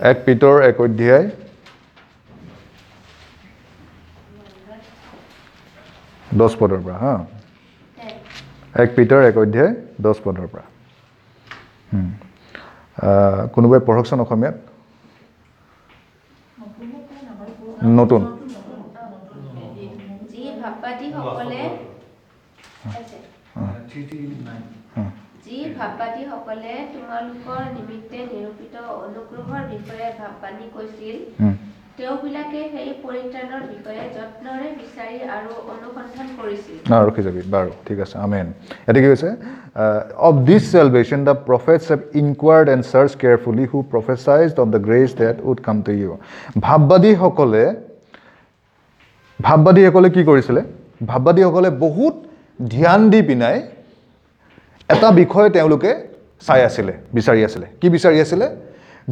1 পিতৰ 1 অধ্যায় 10 পদৰ পৰা। হা, 1 পিতৰ 1 অধ্যায় 10 পদৰ পৰা। কোনোবাই পঢ়কচোন অসমীয়াত। নতুন। যি ভাববাদীসকলে তোমালোকৰ নিমিত্তে নিৰূপিত অনুগ্ৰহৰ বিষয়ে ভাববাণী কৈছিল, তেওঁবিলাকে সেই পৰিত্ৰাণৰ বিষয়ে যত্নৰে বিচাৰি আৰু অনুসন্ধান কৰিছিল। ৰখি যাবি, বাৰু ঠিক আছে, আমেন। ইয়াতে কি কৈছে? Of this salvation the prophets have inquired and search carefully who prophesied of the grace that would come to you. ভাববাদীসকলে কি কৰিছিলে? ভাববাদীসকলে বহুত ধ্যান দি পিনাই এটা বিষয় তেওঁলোকে চাই আছিলে, বিচাৰি আছিলে। কি বিচাৰি আছিলে?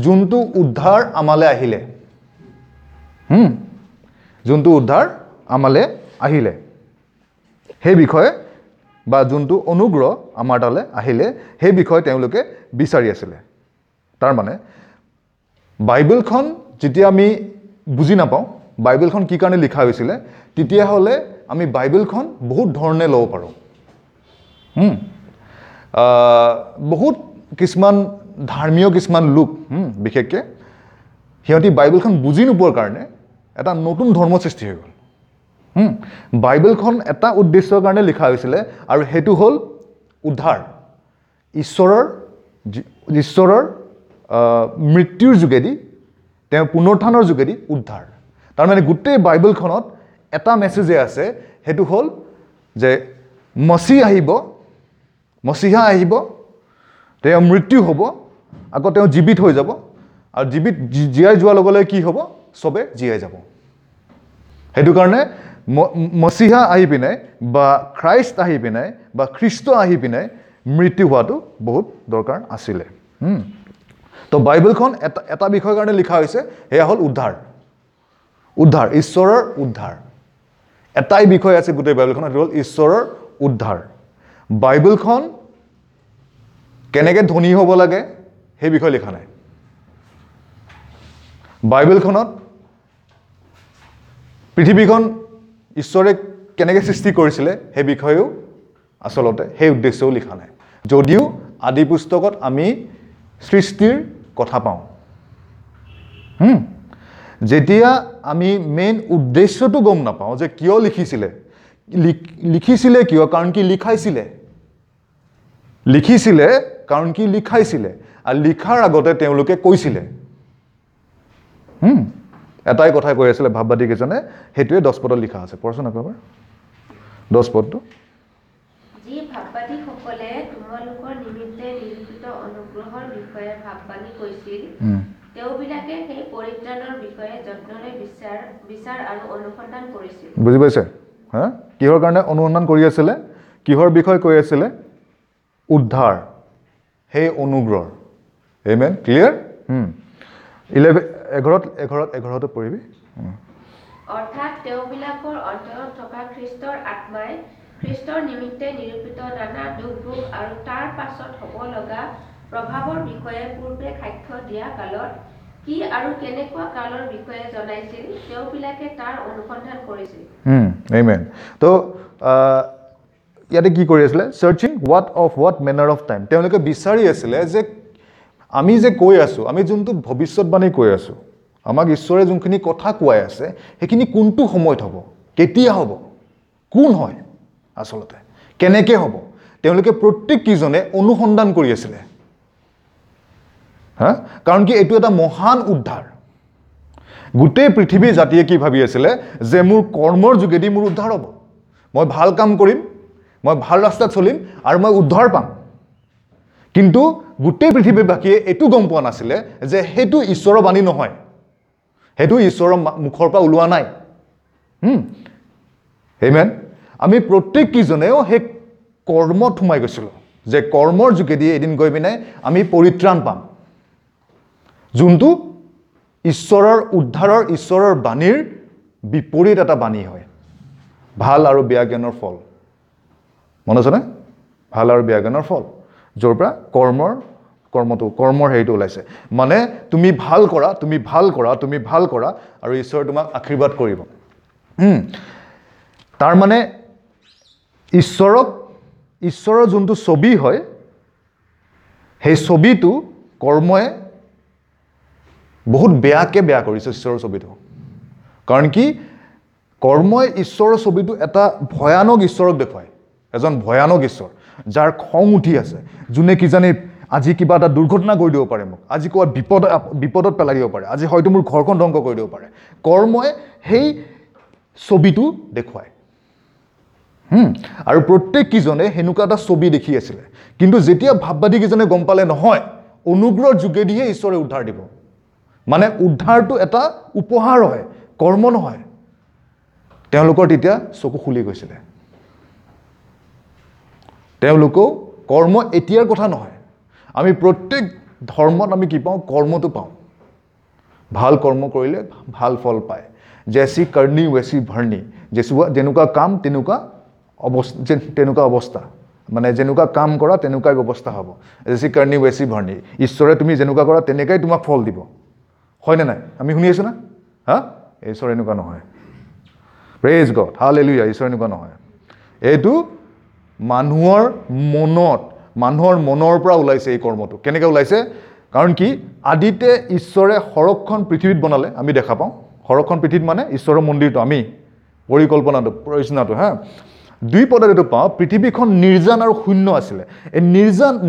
যোনটো উদ্ধাৰ আমালৈ আহিলে, যোনটো উদ্ধাৰ আমালৈ আহিলে সেই বিষয়ে, বা যোনটো অনুগ্ৰহ আমাৰ তালৈ আহিলে সেই বিষয়ে তেওঁলোকে বিচাৰি আছিলে। তাৰমানে বাইবেলখন যেতিয়া আমি বুজি নাপাওঁ বাইবেলখন কি কাৰণে লিখা হৈছিলে, তেতিয়াহ'লে আমি বাইবেলখন বহুত ধৰণে ল'ব পাৰোঁ। বহুত কিছুমান ধৰ্মীয় কিছুমান লোক, বিশেষকৈ সিহঁতি বাইবেলখন বুজি নোপোৱাৰ কাৰণে এটা নতুন ধৰ্ম সৃষ্টি হৈ গ'ল। বাইবেলখন এটা উদ্দেশ্যৰ কাৰণে লিখা হৈছিলে আৰু সেইটো হ'ল উদ্ধাৰ, ঈশ্বৰৰ মৃত্যুৰ যোগেদি, তেওঁ পুনৰুত্থানৰ যোগেদি উদ্ধাৰ। তাৰমানে গোটেই বাইবেলখনত এটা মেছেজে আছে, সেইটো হ'ল যে মচীহ আহিব, মচীহা আহিব, তেওঁ মৃত্যু হ'ব, আকৌ তেওঁ জীৱিত হৈ যাব, আৰু জীৱিত জীয়াই যোৱাৰ লগে লগে কি হ'ব? চবে জীয়াই যাব। সেইটো কাৰণে মচীহা আহি পিনে বা খ্ৰাইষ্ট আহি পিনে বা খ্ৰীষ্ট আহি পিনে মৃত্যু হোৱাটো বহুত দৰকাৰ আছিলে। তো বাইবেলখন এটা বিষয়ৰ কাৰণে লিখা হৈছে, সেয়া হ'ল উদ্ধাৰ, উদ্ধাৰ, ঈশ্বৰৰ উদ্ধাৰ। এটাই বিষয় আছে গোটেই বাইবেলখনত, সেইটো হ'ল ঈশ্বৰৰ উদ্ধাৰ। বাইবেলখন কেনেকৈ ধনী হ'ব লাগে সেই বিষয়ে লিখা নাই। বাইবেলখনত পৃথিৱীখন ঈশ্বৰে কেনেকৈ সৃষ্টি কৰিছিলে সেই বিষয়েও আচলতে সেই উদ্দেশ্যও লিখা নাই, যদিও আদি পুস্তকত আমি সৃষ্টিৰ কথা পাওঁ। যেতিয়া আমি মেইন উদ্দেশ্যটো গম নাপাওঁ যে কিয় লিখিছিলে, লিখিছিলে কিয়, কাৰণ কি লিখাইছিলে, লিখিছিলে কাৰণ কি লিখাইছিলে, আৰু লিখাৰ আগতে তেওঁলোকে কৈছিলে। এটাই কথা কৈ আছিলে ভাববাদীকেইজনে, সেইটোৱে 10 পদত লিখা আছে। পঢ়চোন আকৌ এবাৰ 10 পদটো। যি ভাববাদীসকলে তোমালোকৰ নিমিত্তে নিৰূপিত অনুগ্ৰহৰ বিষয়ে ভাববাণী কৈছিল, তেওঁবিলাকে সেই পৰিত্ৰাণৰ বিষয়ে যত্নৰে বিচাৰ আৰু অনুসন্ধান কৰিছিল। বুজি পাইছে? হা, কিহৰ কাৰণে অনুসন্ধান কৰি আছিলে? কিহৰ বিষয়ে কৈ আছিলে? উদ্ধাৰ, সেই অনুগ্ৰহ। Amen, clear? 11 পঢ়িবি। অৰ্থাৎ তেওঁবিলাকৰ অন্তৰত থকা খ্ৰীষ্টৰ আত্মাই খ্ৰীষ্টৰ নিমিত্তে নিৰূপিত নানা দুখ ভোগ আৰু তাৰ পাছত হ'ব লগা প্ৰভাৱৰ বিষয়ে পূৰ্বে সাক্ষ্য দিয়া কালত কি আৰু কেনেকুৱা কালৰ বিষয়ে জনাইছিল, তেওঁবিলাকে তাৰ অনুসন্ধান কৰিছিল। আমেন। তো ইয়াতে কি কৰি আছিলে? Searching what of what manner of time. তেওঁলোকে বিচাৰি আছিলে যে আমি যে কৈ আছোঁ, আমি যোনটো ভৱিষ্যতবাণী কৈ আছোঁ, আমাক ঈশ্বৰে যোনখিনি কথা কোৱাই আছে সেইখিনি কোনটো সময়ত হ'ব, কেতিয়া হ'ব, কোন হয়, আচলতে কেনেকৈ হ'ব, তেওঁলোকে প্ৰত্যেককেইজনে অনুসন্ধান কৰি আছিলে। হা, কাৰণ কি এইটো এটা মহান উদ্ধাৰ। গোটেই পৃথিৱী জাতিয়ে কি ভাবি আছিলে যে মোৰ কৰ্মৰ যোগেদি মোৰ উদ্ধাৰ হ'ব, মই ভাল কাম কৰিম, মই ভাল ৰাস্তাত চলিম আৰু মই উদ্ধাৰ পাম। কিন্তু গোটেই পৃথিৱীবাসীয়ে এইটো গম পোৱা নাছিলে যে সেইটো ঈশ্বৰৰ বাণী নহয়, সেইটো ঈশ্বৰৰ মুখৰ পৰা ওলোৱা নাই। আমেন। আমি প্ৰত্যেককেইজনেও সেই কৰ্মত সোমাই গৈছিলোঁ যে কৰ্মৰ যোগেদি এদিন গৈ পিনে আমি পৰিত্ৰাণ পাম, যোনটো ঈশ্বৰৰ উদ্ধাৰৰ, ঈশ্বৰৰ বাণীৰ বিপৰীত এটা বাণী হয়। ভাল আৰু বেয়া জ্ঞানৰ ফল, মনত আছেনে? ভাল আৰু বেয়া জ্ঞানৰ ফল, য'ৰ পৰা কৰ্মৰ কৰ্মটো, কৰ্মৰ হেৰিটো ওলাইছে। মানে তুমি ভাল কৰা, তুমি ভাল কৰা, তুমি ভাল কৰা আৰু ঈশ্বৰে তোমাক আশীৰ্বাদ কৰিব। তাৰমানে ঈশ্বৰক, ঈশ্বৰৰ যোনটো ছবি হয়, সেই ছবিটো কৰ্মই বহুত বেয়াকৈ বেয়া কৰিছে ঈশ্বৰৰ ছবিটো। কাৰণ কি, কৰ্মই ঈশ্বৰৰ ছবিটো এটা ভয়ানক ঈশ্বৰক দেখুৱায়, এজন ভয়ানক ঈশ্বৰ যাৰ খং উঠি আছে, যোনে কিজানি আজি কিবা এটা দুৰ্ঘটনা কৰি দিব পাৰে, মোক আজি ক'ৰবাত বিপদত পেলাই দিব পাৰে, আজি হয়তো মোৰ ঘৰখন ধ্বংস কৰি দিব পাৰে। কৰ্মই সেই ছবিটো দেখুৱায়। আৰু প্ৰত্যেককেইজনে সেনেকুৱা এটা ছবি দেখি আছিলে। কিন্তু যেতিয়া ভাববাদীকেইজনে গম পালে নহয়, অনুগ্ৰহৰ যোগেদিহে ঈশ্বৰে উদ্ধাৰ দিব, মানে উদ্ধাৰটো এটা উপহাৰ হয়, কৰ্ম নহয়, তেওঁলোকৰ তেতিয়া চকু খুলি গৈছিলে। তেওঁলোকেও কৰ্ম এতিয়াৰ কথা নহয়, আমি প্ৰত্যেক ধৰ্মত আমি কি পাওঁ, কৰ্মটো পাওঁ। ভাল কৰ্ম কৰিলে ভাল ফল পায়। জেচি কৰ্ণী ৱেচি ভৰ্ণী, যেনেকুৱা কাম তেনেকুৱা অৱস্থা, তেনেকুৱা অৱস্থা, মানে যেনেকুৱা কাম কৰা তেনেকুৱাই ব্যৱস্থা হ'ব। জেচি কৰ্ণী ৱেচি ভৰ্ণী, ঈশ্বৰে তুমি যেনেকুৱা কৰা তেনেকুৱাই তোমাক ফল দিব, হয়নে নাই? আমি শুনি আছোঁ না? হা, ঈশ্বৰ এনেকুৱা নহয়। Praise god, hallelujah. ঈশ্বৰ এনেকুৱা নহয়। এইটো মানুহৰ মনত, মানুহৰ মনৰ পৰা ওলাইছে এই কৰ্মটো। কেনেকৈ ওলাইছে? কাৰণ কি, আদিতে ঈশ্বৰে সৰগখন পৃথিৱীত বনালে, আমি দেখা পাওঁ। সৰগখন পৃথিৱীত মানে ঈশ্বৰৰ মন্দিৰটো, আমি পৰিকল্পনাটো, ৰচনাটো। হা, দুই পদত এইটো পাওঁ, পৃথিৱীখন নিৰ্জন আৰু শূন্য আছিলে। এই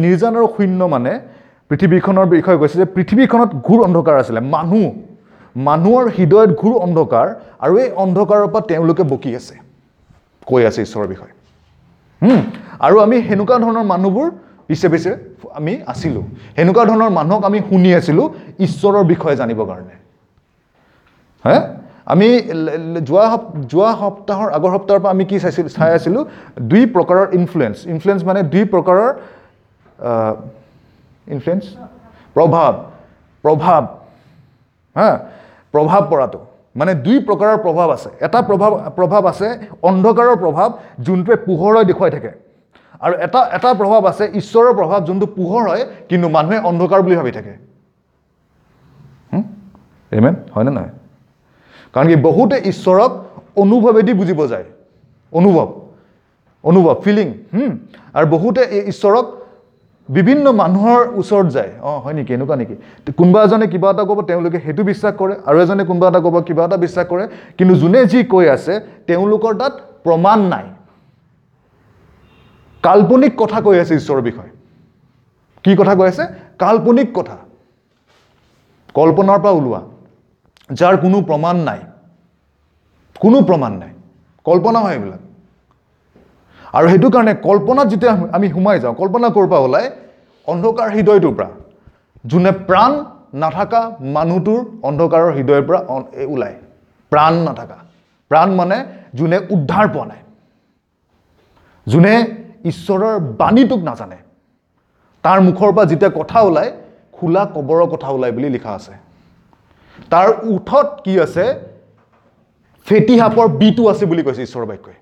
নিৰ্জন আৰু শূন্য মানে পৃথিৱীখনৰ বিষয়ে কৈছে যে পৃথিৱীখনত ঘোৰ অন্ধকাৰ আছিলে, মানুহৰ হৃদয়ত ঘোৰ অন্ধকাৰ, আৰু এই অন্ধকাৰৰ পৰা তেওঁলোকে বকি আছে, কৈ আছে ঈশ্বৰৰ বিষয়ে। আৰু আমি সেনেকুৱা ধৰণৰ মানুহবোৰ পিছে পিছে আমি আছিলোঁ, সেনেকুৱা ধৰণৰ মানুহক আমি শুনি আছিলোঁ ঈশ্বৰৰ বিষয়ে জানিবৰ কাৰণে। হে, আমি যোৱা সপ্তাহৰ আগৰ সপ্তাহৰ পৰা আমি কি চাই আছিলোঁ, দুই প্ৰকাৰৰ ইনফ্লুৱেঞ্চ। ইনফ্লুৱেঞ্চ মানে দুই প্ৰকাৰৰ ইনফ্লুৱেঞ্চ, প্ৰভাৱ, প্ৰভাৱ, হা, প্ৰভাৱ পৰাটো মানে দুই প্ৰকাৰৰ প্ৰভাৱ আছে। এটা প্ৰভাৱ আছে অন্ধকাৰৰ প্ৰভাৱ, যোনটোৱে পোহৰ হৈ দেখুৱাই থাকে, আৰু এটা প্ৰভাৱ আছে ঈশ্বৰৰ প্ৰভাৱ, যোনটো পোহৰ হয় কিন্তু মানুহে অন্ধকাৰ বুলি ভাবি থাকে। আমেন, হয়নে নহয়? কাৰণ কি, বহুতে ঈশ্বৰক অনুভৱেদি বুজিব যায়, অনুভৱ, ফিলিং। আৰু বহুতে ঈশ্বৰক বিভিন্ন মানুহৰ ওচৰত যায়, অঁ হয় নেকি, এনেকুৱা নেকি, কোনোবা এজনে কিবা এটা ক'ব, তেওঁলোকে সেইটো বিশ্বাস কৰে, আৰু এজনে কোনোবা এটা ক'ব, কিবা এটা বিশ্বাস কৰে, কিন্তু যোনে যি কৈ আছে তেওঁলোকৰ তাত প্ৰমাণ নাই, কাল্পনিক কথা কৈ আছে ঈশ্বৰৰ বিষয়ে। কি কথা কৈ আছে? কাল্পনিক কথা, কল্পনাৰ পৰা ওলোৱা, যাৰ কোনো প্ৰমাণ নাই, কোনো প্ৰমাণ নাই, কল্পনা হয় এইবিলাক। আৰু সেইটো কাৰণে কল্পনাত যেতিয়া আমি সোমাই যাওঁ, কল্পনা ক'ৰ পৰা ওলায়? অন্ধকাৰ হৃদয়টোৰ পৰা, যোনে প্ৰাণ নাথাকা মানুহটোৰ অন্ধকাৰৰ হৃদয়ৰ পৰা ওলায়। প্ৰাণ নাথাকা, প্ৰাণ মানে যোনে উদ্ধাৰ পোৱা নাই, যোনে ঈশ্বৰৰ বাণীটোক নাজানে, তাৰ মুখৰ পৰা যেতিয়া কথা ওলায়, খোলা কবৰৰ কথা ওলায় বুলি লিখা আছে। তাৰ ওঠত কি আছে? ফেটি সাপৰ বিটো আছে বুলি কৈছে ঈশ্বৰৰ বাক্যই।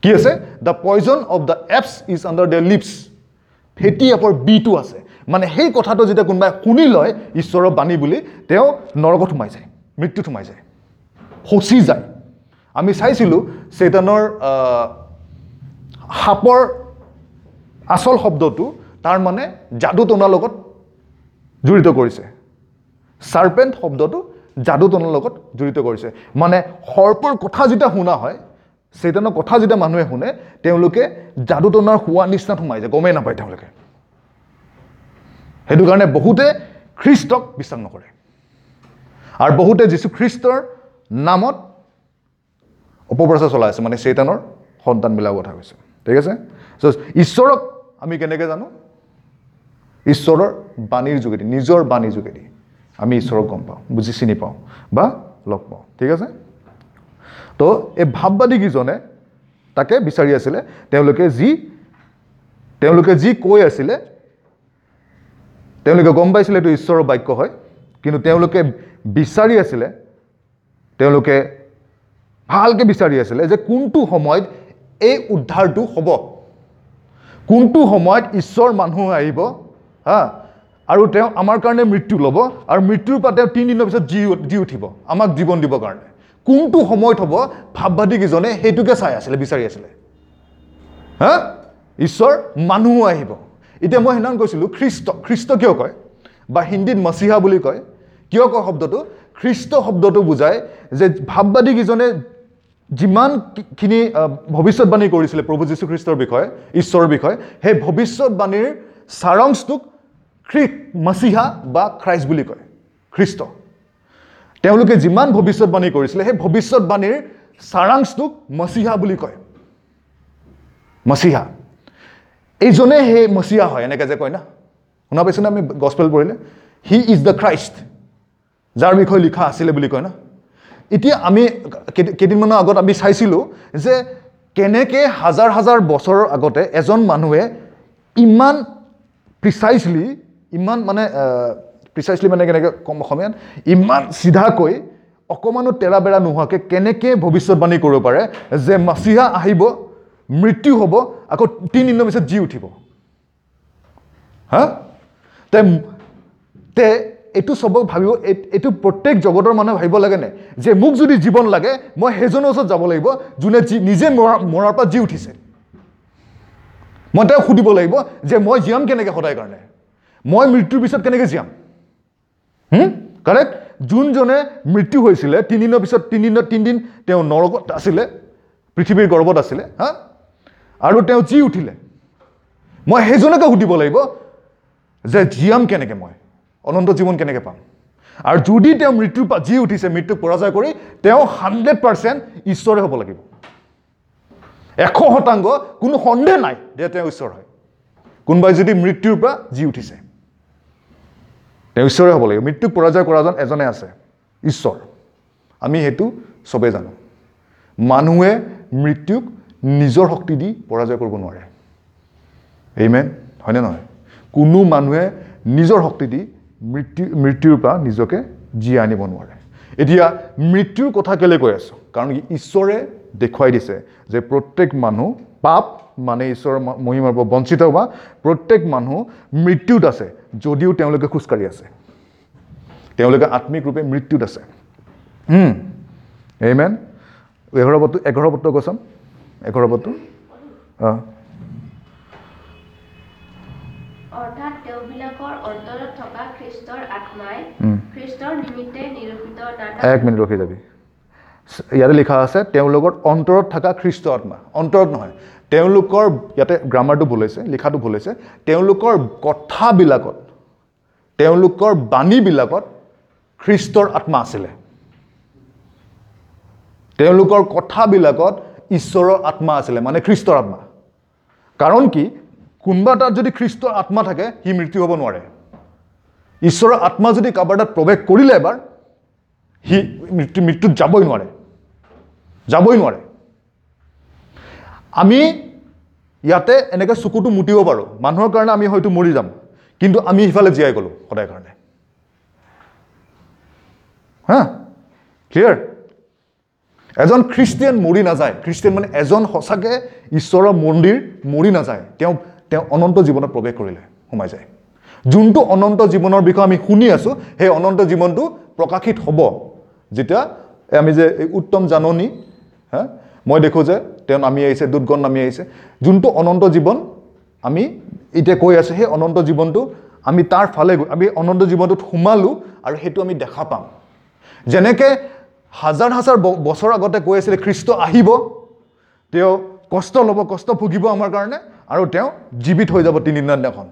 কি আছে? The poison of the asps is under the lips. ফেটি সাপৰ বিটো আছে, মানে সেই কথাটো যেতিয়া কোনোবাই শুনি লয় ঈশ্বৰৰ বাণী বুলি, তেওঁ নৰকত সোমাই যায়, মৃত্যুত সোমাই যায়, ফচি যায়। আমি চাইছিলোঁ চেতানৰ সাপৰ আচল শব্দটো তাৰ মানে যাদু টনাৰ লগত জড়িত কৰিছে। চাৰ্পেণ্ট শব্দটো যাদু টনাৰ লগত জড়িত কৰিছে, মানে সৰ্পৰ কথা যেতিয়া শুনা হয়, চেতানৰ কথা যেতিয়া মানুহে শুনে, তেওঁলোকে যাদু টনাৰ হোৱা নিচিনাত সোমাই যায়, গমেই নাপায় তেওঁলোকে। সেইটো কাৰণে বহুতে খ্ৰীষ্টক বিশ্বাস নকৰে, আৰু বহুতে যীশুখ্ৰীষ্টৰ নামত অপপ্ৰচাৰ চলাই আছে, মানে চেতানৰ সন্তানবিলাকৰ কথা কৈছে। ঠিক আছে? চ' ঈশ্বৰক আমি কেনেকৈ জানো? ঈশ্বৰৰ বাণীৰ যোগেদি, নিজৰ বাণীৰ যোগেদি আমি ঈশ্বৰক গম পাওঁ, বুজি চিনি পাওঁ বা লগ পাওঁ। ঠিক আছে? তো এই ভাববাদীকেইজনে তাকে বিচাৰি আছিলে। তেওঁলোকে যি কৈ আছিলে, তেওঁলোকে গম পাইছিলে এইটো ঈশ্বৰৰ বাক্য হয়, কিন্তু তেওঁলোকে বিচাৰি আছিলে, তেওঁলোকে ভালকৈ বিচাৰি আছিলে যে কোনটো সময়ত এই উদ্ধাৰটো হ'ব, কোনটো সময়ত ঈশ্বৰ মানুহ আহিব, হা, আৰু তেওঁ আমাৰ কাৰণে মৃত্যু ল'ব, আৰু মৃত্যুৰ পৰা তেওঁ 3 দিনৰ পিছত জি উঠিব আমাক জীৱন দিবৰ কাৰণে। কোনটো সময়ত হ'ব ভাববাদীকেইজনে সেইটোকে চাই আছিলে, বিচাৰি আছিলে। হা, ঈশ্বৰ মানুহো আহিব। এতিয়া মই সেইদিনাখন কৈছিলোঁ খ্ৰীষ্ট, খ্ৰীষ্ট কিয় কয় বা হিন্দীত মচিহা বুলি কয়, কিয় কয় শব্দটো? খ্ৰীষ্ট শব্দটো বুজায় যে ভাববাদীকেইজনে যিমানখিনি ভৱিষ্যতবাণী কৰিছিলে প্ৰভু যীশুখ্ৰীষ্টৰ বিষয়ে, ঈশ্বৰৰ বিষয়ে, সেই ভৱিষ্যতবাণীৰ সাৰাংশটোক মচিহা বা খ্ৰাইষ্ট বুলি কয়, খ্ৰীষ্ট। তেওঁলোকে যিমান ভৱিষ্যতবাণী কৰিছিলে সেই ভৱিষ্যতবাণীৰ সাৰাংশটোক মচিহা বুলি কয়। মচিহা এইজনে সেই মচিহা হয়, এনেকৈ যে কয় না, শুনা পাইছোঁ না আমি গছপেল পঢ়িলে, he is the Christ, যাৰ বিষয়ে লিখা আছিলে বুলি কয় না। এতিয়া আমি কেইদিনমানৰ আগত আমি চাইছিলোঁ যে কেনেকৈ হাজাৰ হাজাৰ বছৰৰ আগতে এজন মানুহে ইমান প্ৰিচাইজলি, ইমান মানে প্ৰিচাইজলি মানে কেনেকৈ কম অসমীয়াত, ইমান চিধাকৈ অকণমানো তেৰা বেৰা নোহোৱাকৈ কেনেকৈ ভৱিষ্যতবাণী কৰিব পাৰে যে মচিহা আহিব, মৃত্যু হ'ব, আকৌ 3 দিনৰ পিছত জি উঠিব। হা, তে এইটো চবক ভাবিব, এইটো প্ৰত্যেক জগতৰ মানুহে ভাবিব লাগেনে যে মোক যদি জীৱন লাগে মই সেইজনৰ ওচৰত যাব লাগিব যোনে নিজে মৰাৰ পৰা জি উঠিছে। মই তেওঁক সুধিব লাগিব যে মই জীয়াম কেনেকৈ সদায় কাৰণে, মই মৃত্যুৰ পিছত কেনেকৈ জীয়াম। কাৰেক্ট? যোনজনে মৃত্যু হৈছিলে 3 দিনৰ পিছত, 3 দিন তেওঁ নৰকত আছিলে, পৃথিৱীৰ গৰ্ভত আছিলে, হা, আৰু তেওঁ জি উঠিলে, মই সেইজনকে সুধিব লাগিব যে জীয়াম কেনেকৈ, মই অনন্ত জীৱন কেনেকৈ পাম। আৰু যদি তেওঁ মৃত্যুৰ পৰা জি উঠিছে, মৃত্যুক পৰাজয় কৰি, তেওঁ 100% ঈশ্বৰে হ'ব লাগিব, 100% কোনো সন্দেহ নাই যে তেওঁ ঈশ্বৰ হয়। কোনোবাই যদি মৃত্যুৰ পৰা জি উঠিছে তেওঁ ঈশ্বৰে হ'ব লাগিব। মৃত্যুক পৰাজয় কৰাজন এজনে আছে, ঈশ্বৰ। আমি সেইটো চবেই জানো। মানুহে মৃত্যুক নিজৰ শক্তি দি পৰাজয় কৰিব নোৱাৰে। আমেন, হয়নে নহয়? কোনো মানুহে নিজৰ শক্তি দি মৃত্যুৰ পৰা নিজকে জীয়াই আনিব নোৱাৰে। এতিয়া মৃত্যুৰ কথা কেলৈ কৈ আছোঁ? কাৰণ ঈশ্বৰে দেখুৱাই দিছে যে প্ৰত্যেক মানুহ পাপ মানে ঈশ্বৰৰ মহিমাৰ পৰা বঞ্চিত হোৱা, প্ৰত্যেক মানুহ মৃত্যুত আছে যদিও তেওঁলোকে খোজকাঢ়ি আছে, তেওঁলোকে আত্মিক ৰূপে মৃত্যুত আছে। আমেন। 11 পদটো কৈছাম, 11 পদটো। অৰ্থাৎ তেওঁবিলাকৰ অন্তৰত থকা খ্ৰীষ্টৰ আত্মাই খ্ৰীষ্টৰ নিমিত্তে নিৰূপিত নানা। এক মিনিট ৰখি যাবি। ইয়াতে লিখা আছে তেওঁলোকৰ অন্তৰত থকা খ্ৰীষ্ট আত্মা, অন্তৰত নহয়, তেওঁলোকৰ, ইয়াতে গ্ৰামাৰটো ভুল হৈছে, লিখাটো ভুল হৈছে, তেওঁলোকৰ কথাবিলাকত, তেওঁলোকৰ বাণীবিলাকত খ্ৰীষ্টৰ আত্মা আছিলে। তেওঁলোকৰ কথাবিলাকত ঈশ্বৰৰ আত্মা আছিলে, মানে খ্ৰীষ্টৰ আত্মা। কাৰণ কি, কোনোবা তাত যদি খ্ৰীষ্টৰ আত্মা থাকে সি মৃত্যু হ'ব নোৱাৰে। ঈশ্বৰৰ আত্মা যদি কাৰোবাৰ তাত প্ৰৱেশ কৰিলে এবাৰ, সি মৃত্যুত যাবই নোৱাৰে, যাবই নোৱাৰে। আমি ইয়াতে এনেকৈ চকুটো মুটিব পাৰোঁ, মানুহৰ কাৰণে আমি হয়তো মৰি যাম, কিন্তু আমি সিফালে জীয়াই গ'লোঁ সদায় কাৰণে। হা, ক্লিয়াৰ? এজন খ্ৰীষ্টিয়ান মৰি নাযায়। খ্ৰীষ্টিয়ান মানে এজন সঁচাকৈ ঈশ্বৰৰ মন্দিৰ মৰি নাযায়, তেওঁ অনন্ত জীৱনত প্ৰৱেশ কৰিলে, সোমাই যায়। যোনটো অনন্ত জীৱনৰ বিষয়ে আমি শুনি আছোঁ, সেই অনন্ত জীৱনটো প্ৰকাশিত হ'ব যেতিয়া আমি যে এই উত্তম জাননী, হা, মই দেখোঁ যে তেওঁ নামি আহিছে, দূতগণ নামি আহিছে। যোনটো অনন্ত জীৱন আমি এতিয়া কৈ আছোঁ, সেই অনন্ত জীৱনটো আমি তাৰ ফালে গৈ আমি অনন্ত জীৱনটোত সোমালোঁ আৰু সেইটো আমি দেখা পাম। যেনেকৈ হাজাৰ হাজাৰ বছৰ আগতে কৈ আছিলে খ্ৰীষ্ট আহিব, তেওঁ কষ্ট ল'ব, কষ্ট ভুগিব আমাৰ কাৰণে, আৰু তেওঁ জীৱিত হৈ যাব 3 দিনৰ দিনাখন,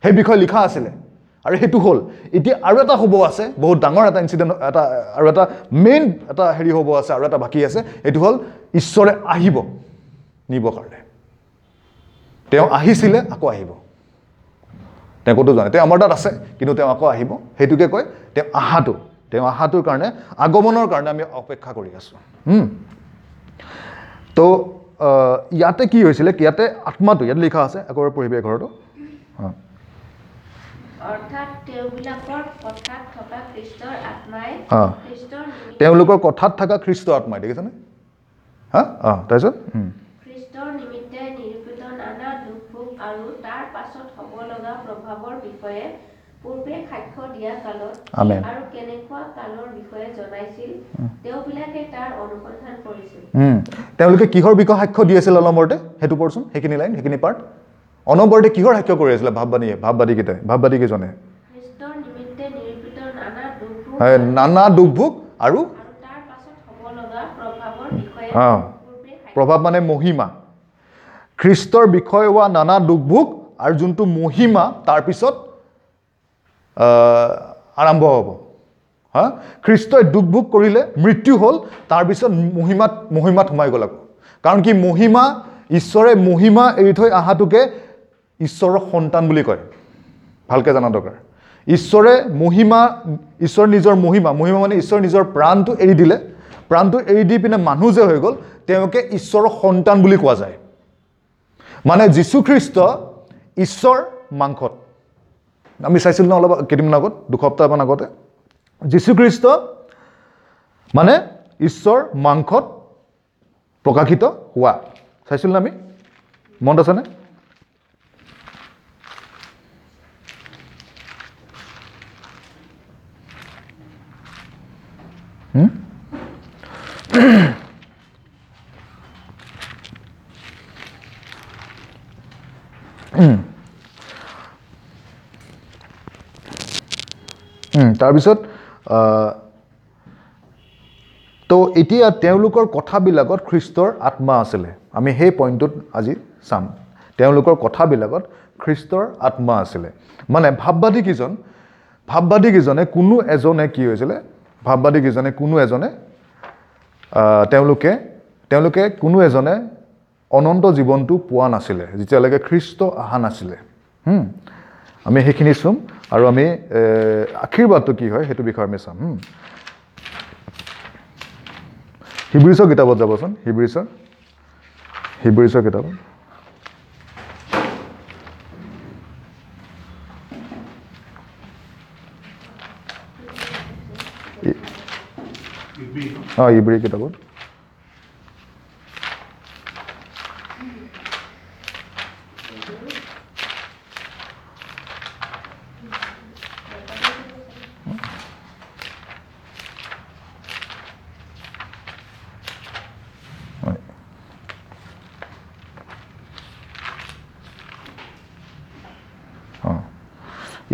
সেই বিষয়ে লিখা আছিলে আৰু সেইটো হ'ল। এতিয়া আৰু এটা হ'ব আছে, বহুত ডাঙৰ এটা ইনচিডেণ্ট, এটা আৰু এটা মেইন এটা হেৰি হ'ব আছে, আৰু এটা বাকী আছে, সেইটো হ'ল ঈশ্বৰে আহিব নিব কাৰণে। তেওঁ আহিছিলে, আকৌ আহিব, তেওঁ ক'তো যোৱা নাই, তেওঁ আমাৰ তাত আছে, কিন্তু তেওঁ আকৌ আহিব। সেইটোকে কয় তেওঁ আহাটো। তেওঁ আহাটোৰ কাৰণে, আগমনৰ কাৰণে আমি অপেক্ষা কৰি আছোঁ। তো ইয়াতে কি হৈছিলে, ইয়াতে আত্মাটো ইয়াত লিখা আছে, আকৌ এবাৰ পঢ়িবি 11টো। অৰ্থাৎ তেওঁবিলাকৰ কথাত থকা খ্ৰীষ্টৰ আত্মাই খ্ৰীষ্টৰ তেওঁলোকৰ কথাত থকা খ্ৰীষ্টৰ আত্মাই, দেখিছেনে? হা, তাৰপিছত খ্ৰীষ্টৰ নিমিত্তে নিৰূপিত নানা দুখ ভোগ আৰু তাৰ পাছত হ'ব লগা প্ৰভাৱৰ বিষয়ে পূৰ্বে সাক্ষ্য দিয়া কালত আৰু কেনেকুৱা কালৰ বিষয়ে জনাইছিল তেওঁবিলাকে তাৰ অনুসন্ধান কৰিছিল। তেওঁলোকে কিহৰ বিষয়ে সাক্ষ্য দি আছিল অলম্বৰতে, সেইটো পঢ়চোন, সেইখিনি লাইন, সেইখিনি পাৰ্ট। অনবৰতে কিহৰ সাক্ষ্য কৰি আছিলে ভাৱবাণীয়ে, ভাৱবাদীকেইটাই, ভাৱবাদীকেইজনে? খ্ৰীষ্টৰ নিমিত্তে নিৰূপিত নানা দুখ ভোগ আৰু তাৰ পাছত হ'ব লগা প্ৰভাৱৰ বিষয়ে, প্ৰভাৱ মানে মহিমা, খ্ৰীষ্টৰ বিষয়ে হোৱা নানা দুখ ভোগ আৰু যোনটো মহিমা তাৰপিছত আৰম্ভ হ'ব। হা, খ্ৰীষ্টই দুখ ভোগ কৰিলে, মৃত্যু হ'ল, তাৰপিছত মহিমাত সোমাই গ'ল আকৌ। কাৰণ কি, মহিমা, ঈশ্বৰে মহিমা এৰি থৈ অহাটোকে ঈশ্বৰৰ সন্তান বুলি কয়। ভালকৈ জনা দৰকাৰ। ঈশ্বৰে মহিমা, ঈশ্বৰ নিজৰ মহিমা, মহিমা মানে ঈশ্বৰ নিজৰ প্ৰাণটো এৰি দিলে, প্ৰাণটো এৰি দি পিনে মানুহ যে হৈ গ'ল, তেওঁকে ঈশ্বৰৰ সন্তান বুলি কোৱা যায়। মানে যীশুখ্ৰীষ্ট ঈশ্বৰ মাংসত, আমি চাইছিলোঁ ন অলপ কেইদিনমান আগত, 2 সপ্তাহমান আগতে, যীশুখ্ৰীষ্ট মানে ঈশ্বৰ মাংসত প্ৰকাশিত হোৱা চাইছিলোঁ ন আমি, মনত আছেনে? তাৰপিছত তো এতিয়া তেওঁলোকৰ কথাবিলাকত খ্ৰীষ্টৰ আত্মা আছিলে। আমি সেই পইণ্টটোত আজি চাম। তেওঁলোকৰ কথাবিলাকত খ্ৰীষ্টৰ আত্মা আছিলে মানে ভাৱবাদীকেইজনে কোনো এজনে কি হৈছিলে, ভাৱবাদীকেইজনে কোনো এজনে তেওঁলোকে কোনো এজনে অনন্ত জীৱনটো পোৱা নাছিলে যেতিয়ালৈকে খ্ৰীষ্ট অহা নাছিলে। আমি সেইখিনি চুম আৰু আমি আশীৰ্বাদটো কি হয় সেইটো বিষয়ে আমি চাম। হিব্ৰীচৰ কিতাপত যাবচোন, হিব্ৰীচৰ কিতাপত ইব্ৰী কিতাপত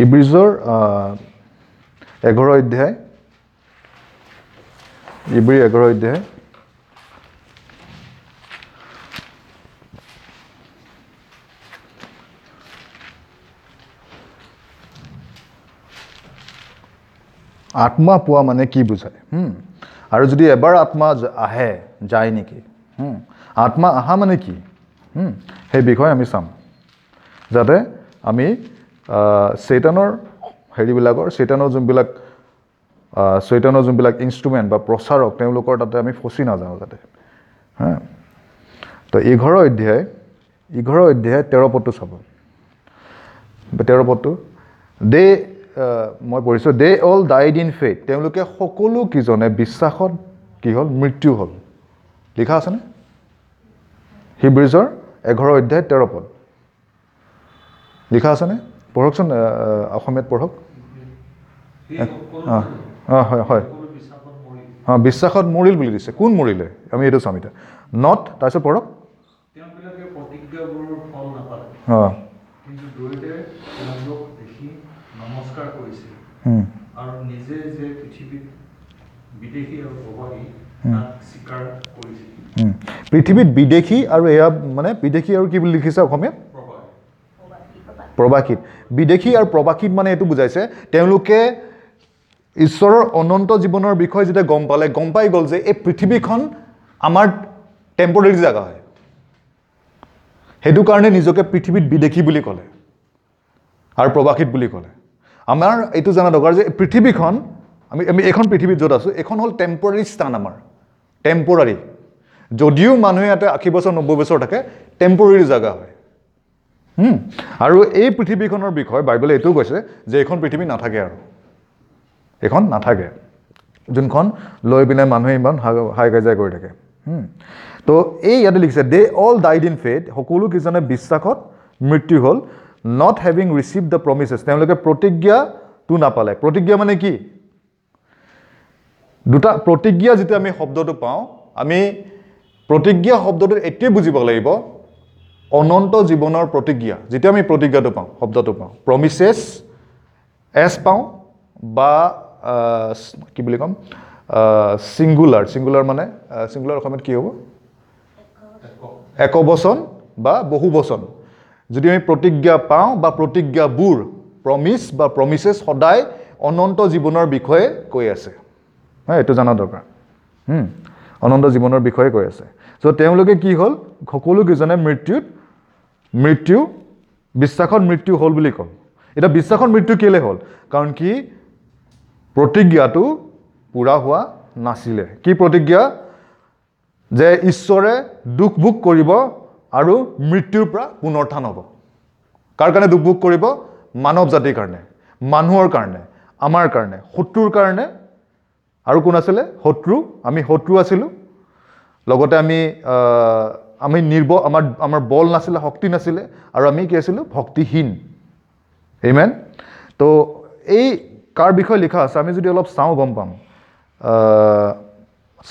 ইব্ৰীজৰ 11 অধ্যায়, ইব্ৰী 11 অধ্যায় আত্মা পোৱা মানে কি বুজায়, আৰু যদি এবাৰ আত্মা আহে যায় নেকি, আত্মা অহা মানে কি, সেই বিষয়ে আমি চাম, যাতে আমি চৈতানৰ হেৰিবিলাকৰ, চৈতানৰ যোনবিলাক ইনষ্ট্ৰুমেণ্ট বা প্ৰচাৰক, তেওঁলোকৰ তাতে আমি ফচি নাযাওঁ যাতে। হা, তো 11 অধ্যায় 13 পদটো চাব, 13 পদটো দে মই পঢ়িছোঁ, they all died in faith, তেওঁলোকে সকলো কেইজনে বিশ্বাসত কি হ'ল, মৃত্যু হ'ল। লিখা আছেনে? হিব্ৰীজৰ 11 অধ্যায় 13 পদ লিখা আছেনে? পঢ়কচোন, অসমীয়াত পঢ়ক। হয় হয়, অঁ, বিশ্বাসত মৰিল বুলি দিছে। কোন মৰিলে আমি এইটো চাম এতিয়া। Not, তাৰপিছত পঢ়ক। অঁ, পৃথিৱীত বিদেশী আৰু এয়া মানে বিদেশী আৰু কি বুলি লিখিছে অসমীয়াত? প্ৰবাসীত। বিদেশী আৰু প্ৰবাসীত মানে এইটো বুজাইছে, তেওঁলোকে ঈশ্বৰৰ অনন্ত জীৱনৰ বিষয়ে যেতিয়া গম পালে, গম পাই গ'ল যে এই পৃথিৱীখন আমাৰ টেম্পৰেৰী জেগা হয়, সেইটো কাৰণে নিজকে পৃথিৱীত বিদেশী বুলি ক'লে আৰু প্ৰবাসীত বুলি ক'লে। আমাৰ এইটো জনা দৰকাৰ যে পৃথিৱীখন, আমি এইখন পৃথিৱীত য'ত আছোঁ, এইখন হ'ল টেম্পৰেৰী স্থান আমাৰ, টেম্পৰাৰী। যদিও মানুহে ইয়াতে 80 বছৰ 90 বছৰ থাকে, টেম্পৰেৰী জেগা হয়। আৰু এই পৃথিৱীখনৰ বিষয়ে বাইবেলে এইটোও কৈছে যে এইখন পৃথিৱী নাথাকে আৰু এইখন নাথাকে, যোনখন লৈ পিনে মানুহে ইমান হাই কাজিয়া কৰি থাকে। তো এই ইয়াতে লিখিছে they all died in faith, সকলো কেইজনে বিশ্বাসত মৃত্যু হ'ল, Not having receive the promises, তেওঁলোকে প্ৰতিজ্ঞাটো নাপালে। প্ৰতিজ্ঞা মানে কি? দুটা প্ৰতিজ্ঞা যেতিয়া আমি শব্দটো পাওঁ, আমি প্ৰতিজ্ঞা শব্দটো এইটোৱে বুজিব লাগিব, অনন্ত জীৱনৰ প্ৰতিজ্ঞা। যেতিয়া আমি প্ৰতিজ্ঞাটো পাওঁ, শব্দটো পাওঁ, প্ৰমিচেছ এছ পাওঁ বা কি বুলি ক'ম, ছিংগুলাৰ, ছিংগুলাৰ মানে ছিংগুলাৰ অসমীয়াত কি হ'ব, একবচন বা বহুবচন। যদি আমি প্ৰতিজ্ঞা পাওঁ বা প্ৰতিজ্ঞাবোৰ, প্ৰমিচ বা প্ৰমিচেছ সদায় অনন্ত জীৱনৰ বিষয়ে কৈ আছে। হয়, এইটো জনা দৰকাৰ। অনন্ত জীৱনৰ বিষয়ে কৈ আছে। চ' তেওঁলোকে কি হ'ল, সকলোকেইজনে মৃত্যু বিশ্বাসত মৃত্যু হ'ল বুলি ক'ল। এতিয়া বিশ্বাসত মৃত্যু কেলৈ হ'ল? কাৰণ কি প্ৰতিজ্ঞাটো পূৰা হোৱা নাছিলে। কি প্ৰতিজ্ঞা? যে ঈশ্বৰে দুখ ভোগ কৰিব আৰু মৃত্যুৰ পৰা পুনৰুত্থান হ'ব। কাৰ কাৰণে দুখ ভোগ কৰিব? মানৱ জাতিৰ কাৰণে, মানুহৰ কাৰণে, আমাৰ কাৰণে, শত্ৰুৰ কাৰণে। আৰু কোন আছিলে? শত্ৰু। আমি শত্ৰু আছিলোঁ, লগতে আমি আমি আমাৰ বল নাছিলে, শক্তি নাছিলে, আৰু আমি কি আছিলোঁ? ভক্তিহীন। আমেন। তো এই কাৰ বিষয়ে লিখা আছে আমি যদি অলপ চাওঁ গম পাম।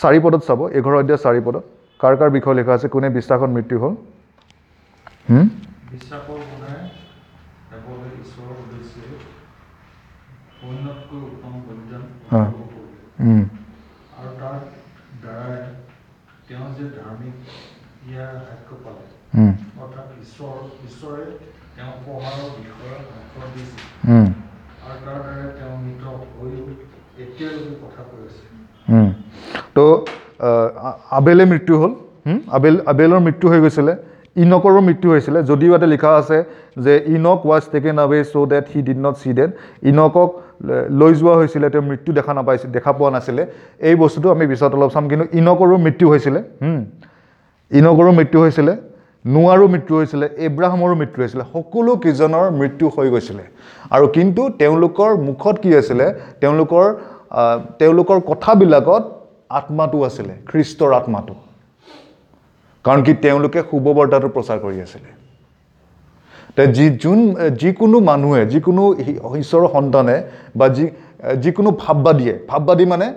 4 পদত চাব, 11 অধ্যায় 4 পদত কাৰ কাৰ বিষয়ে লিখা আছে, কোনে বিশ্বাসত মৃত্যু হ'ল? বিশ্বাসৰ গুণেৰে আবেলে ঈশ্বৰৰ উদ্দেশ্যে অন্যতকৈ উত্তম বলিদান উৎসৰ্গ কৰিলে, আৰু তাৰ দ্বাৰাই তেওঁ যে ধাৰ্মিক ইয়াৰ সাক্ষ্য পালে, অৰ্থাৎ ঈশ্বৰে তেওঁ উপহাৰৰ বিষয়ে সাক্ষ্য দিছে, আৰু তাৰ দ্বাৰাই তেওঁ মৃত হৈও এতিয়ালৈকে কথা কৈ আছে। তো আবেলে মৃত্যু হ'ল। আবেলৰ মৃত্যু হৈ গৈছিলে, ইনকৰো মৃত্যু হৈছিলে। যদিও ইয়াতে লিখা আছে যে Enoch was taken away so that he did not see death, ইনকক লৈ যোৱা হৈছিলে, তেওঁ মৃত্যু দেখা নাপাইছিল, দেখা পোৱা নাছিলে। এই বস্তুটো আমি পিছত অলপ চাম। কিন্তু ইনকৰো মৃত্যু হৈছিলে, ইনকৰো মৃত্যু হৈছিলে, নোৱাৰো মৃত্যু হৈছিলে, এব্ৰাহামৰো মৃত্যু হৈছিলে, সকলো কেইজনৰ মৃত্যু হৈ গৈছিলে। আৰু কিন্তু তেওঁলোকৰ মুখত কি আছিলে? তেওঁলোকৰ কথাবিলাকত আত্মাটো আছিলে, খ্ৰীষ্টৰ আত্মাটো। কাৰণ কি তেওঁলোকে শুভবাৰ্তাটো প্ৰচাৰ কৰি আছিলে। যিকোনো মানুহে, যিকোনো ঈশ্বৰৰ সন্তানে বা যিকোনো ভাববাদীয়ে, ভাববাদী মানে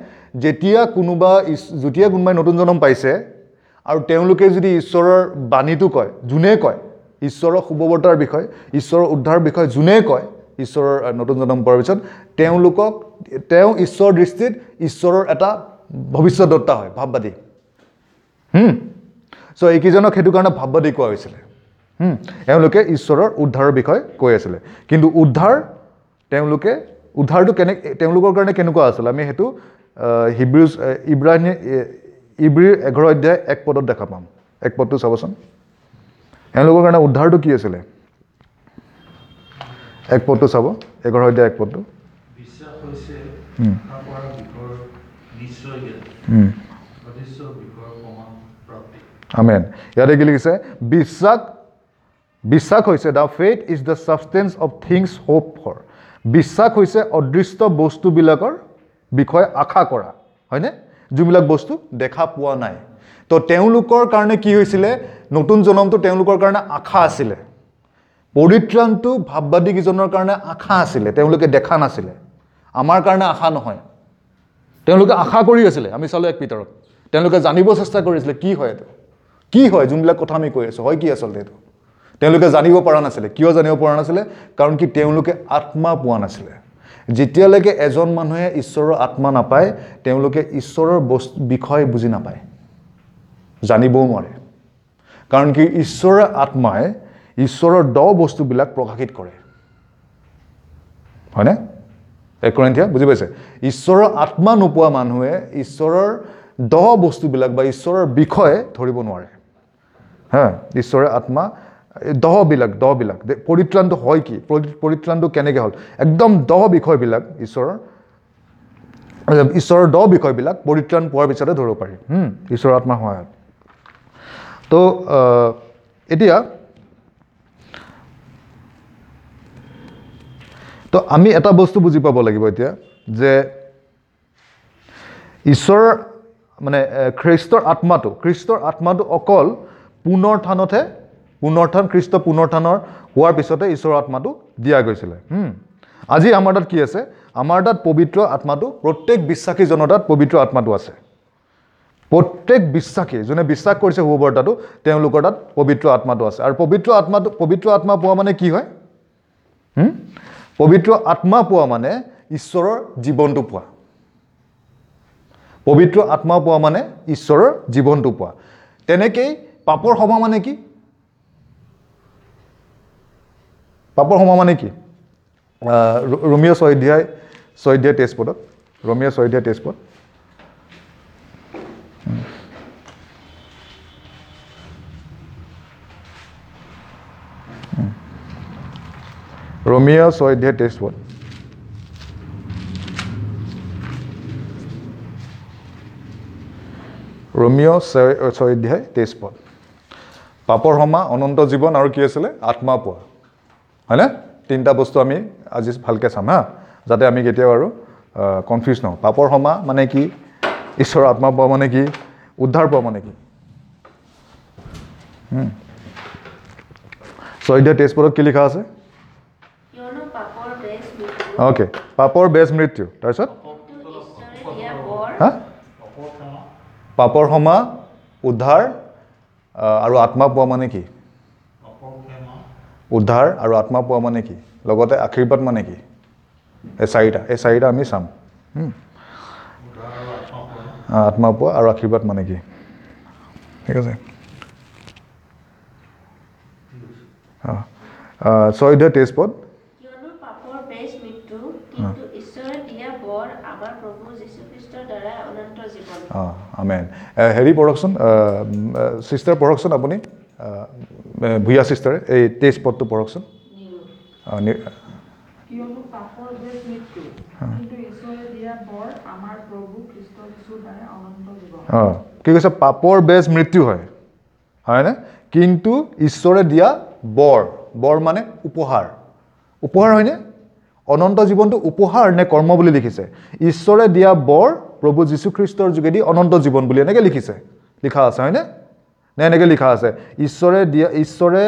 যেতিয়া কোনোবাই নতুন জন্ম পাইছে আৰু তেওঁলোকে যদি ঈশ্বৰৰ বাণীটো কয়, যোনে কয় ঈশ্বৰৰ শুভবাৰ্তাৰ বিষয়ে, ঈশ্বৰৰ উদ্ধাৰৰ বিষয়ে যোনে কয়, ঈশ্বৰৰ নতুন জন্ম পোৱাৰ পিছত তেওঁ ঈশ্বৰৰ দৃষ্টিত ঈশ্বৰৰ এটা ভৱিষ্যতদত্তা হয়, ভাববাদী। চ' এইকেইজনক সেইটো কাৰণে ভাববাদী কোৱা হৈছিলে। এওঁলোকে ঈশ্বৰৰ উদ্ধাৰৰ বিষয়ে কৈ আছিলে। কিন্তু উদ্ধাৰটো তেওঁলোকৰ কাৰণে কেনেকুৱা আছিলে আমি সেইটো ইব্ৰীৰ 11 অধ্যায় 1 পদত দেখা পাম। 1 পদটো চাবচোন, এওঁলোকৰ কাৰণে উদ্ধাৰটো কি আছিলে? 1 পদটো চাব, 11 অধ্যায় 1 পদটো। আমেন। ইয়াতে কি লিখিছে? বিশ্বাস হৈছে, the faith is the substance of things hope for. বিশ্বাস হৈছে অদৃষ্ট বস্তুবিলাকৰ বিষয়ে আশা কৰা, হয়নে? যোনবিলাক বস্তু দেখা পোৱা নাই। তো তেওঁলোকৰ কাৰণে কি হৈছিলে? নতুন জনমটো তেওঁলোকৰ কাৰণে আশা আছিলে। পৰিত্ৰাণটো ভাববাদীকেইজনৰ কাৰণে আশা আছিলে, তেওঁলোকে দেখা নাছিলে। আমাৰ কাৰণে আশা নহয়, তেওঁলোকে আশা কৰি আছিলে। আমি চালোঁ 1 পিতৰত তেওঁলোকে জানিব চেষ্টা কৰিছিলে কি হয় এইটো, কি হয় যোনবিলাক কথা আমি কৈ আছোঁ, হয় কি আচলতে এইটো। তেওঁলোকে জানিব পৰা নাছিলে। কিয় জানিব পৰা নাছিলে? কাৰণ কি তেওঁলোকে আত্মা পোৱা নাছিলে। যেতিয়ালৈকে এজন মানুহে ঈশ্বৰৰ আত্মা নাপায়, তেওঁলোকে ঈশ্বৰৰ বিষয় বুজি নাপায়, জানিবও নোৱাৰে। কাৰণ কি ঈশ্বৰৰ আত্মাই ঈশ্বৰৰ দ বস্তুবিলাক প্ৰকাশিত কৰে, হয়নে? 1 কৰিন্থীয়া বুজি পাইছে? ঈশ্বৰৰ আত্মা নোপোৱা মানুহে ঈশ্বৰৰ দ বস্তুবিলাক বা ঈশ্বৰৰ বিষয়ে ধৰিব নোৱাৰে। হা, ঈশ্বৰৰ আত্মা দহবিলাক পৰিত্ৰাণটো হয় কি, পৰিত্ৰাণটো কেনেকৈ হ'ল, একদম দহ বিষয়বিলাক ঈশ্বৰৰ দহ বিষয়বিলাক পৰিত্ৰাণ পোৱাৰ পিছতে ধৰিব পাৰি, ঈশ্বৰৰ আত্মাৰ সহায়ত। তো এতিয়া তো আমি এটা বস্তু বুজি পাব লাগিব এতিয়া, যে ঈশ্বৰৰ মানে খ্ৰীষ্টৰ আত্মাটো অকল পুনৰুত্থানতহে পুনৰুত্থান, খ্ৰীষ্ট পুনৰুত্থানৰ হোৱাৰ পিছতে ঈশ্বৰৰ আত্মাটো দিয়া গৈছিলে। আজি আমাৰ তাত কি আছে? আমাৰ তাত পবিত্ৰ আত্মাটো, প্ৰত্যেক বিশ্বাসীজনৰ তাত পবিত্ৰ আত্মাটো আছে। প্ৰত্যেক বিশ্বাসী যোনে বিশ্বাস কৰিছে শুভবাৰ্তাটো, তেওঁলোকৰ তাত পবিত্ৰ আত্মাটো আছে। আৰু পবিত্ৰ আত্মাটো, পবিত্ৰ আত্মা পোৱা মানে কি হয়? পবিত্ৰ আত্মা পোৱা মানে ঈশ্বৰৰ জীৱনটো পোৱা। পবিত্ৰ আত্মা পোৱা মানে ঈশ্বৰৰ জীৱনটো পোৱা। তেনেকেই পাপৰ ক্ষমা মানে কি? পাপৰ ক্ষমা মানে কি? ৰোমীয় 6 অধ্যায় 23 পদত, ৰোমীয় 6 অধ্যায় 23 পদ। ৰোমীয় 6 অধ্যায় 23 পদ। ৰোমীয় 6 অধ্যায় 23 পদ। পাপৰ ক্ষমা, অনন্ত জীৱন আৰু কি আছিলে? আত্মা পোৱা, হয়নে? তিনিটা বস্তু আমি আজি ভালকৈ চাম, হা, যাতে আমি কেতিয়াও আৰু কনফিউজ নহওঁ। পাপৰ ক্ষমা মানে কি? ঈশ্বৰৰ আত্মা পোৱা মানে কি? উদ্ধাৰ পোৱা মানে কি? 6 অধ্যায় 23 পদত কি লিখা আছে? অ'কে, পাপৰ বেজ মৃত্যু। তাৰপিছত হা, পাপৰ ক্ষমা, উদ্ধাৰ আৰু আত্মা পোৱা মানে কি? উদ্ধাৰ আৰু আত্মা পোৱা মানে কি? লগতে আশীৰ্বাদ মানে কি? এই চাৰিটা আমি চাম। আত্মা পোৱা আৰু আশীৰ্বাদ মানে কি? ঠিক আছে। 6 অধ্যায় 23 পদ। আমেন। হেৰি পঢ়কচোন, চিষ্টাৰ পঢ়কচোন, আপুনি ভূঞা চিষ্টাৰে এই 23 পদটো পঢ়কচোন। কি কৈছে? পাপৰ বেজ মৃত্যু হয়, হয়নে? কিন্তু ঈশ্বৰে দিয়া বৰ, বৰ মানে উপহাৰ, উপহাৰ হয়নে? অনন্ত জীৱনটো উপহাৰ নে কৰ্ম বুলি লিখিছে? ঈশ্বৰে দিয়া বৰ প্ৰভু যীশুখ্ৰীষ্টৰ যোগেদি অনন্ত জীৱন বুলি এনেকৈ লিখিছে, লিখা আছে হয়নে? নে এনেকৈ লিখা আছে ঈশ্বৰে দিয়া, ঈশ্বৰে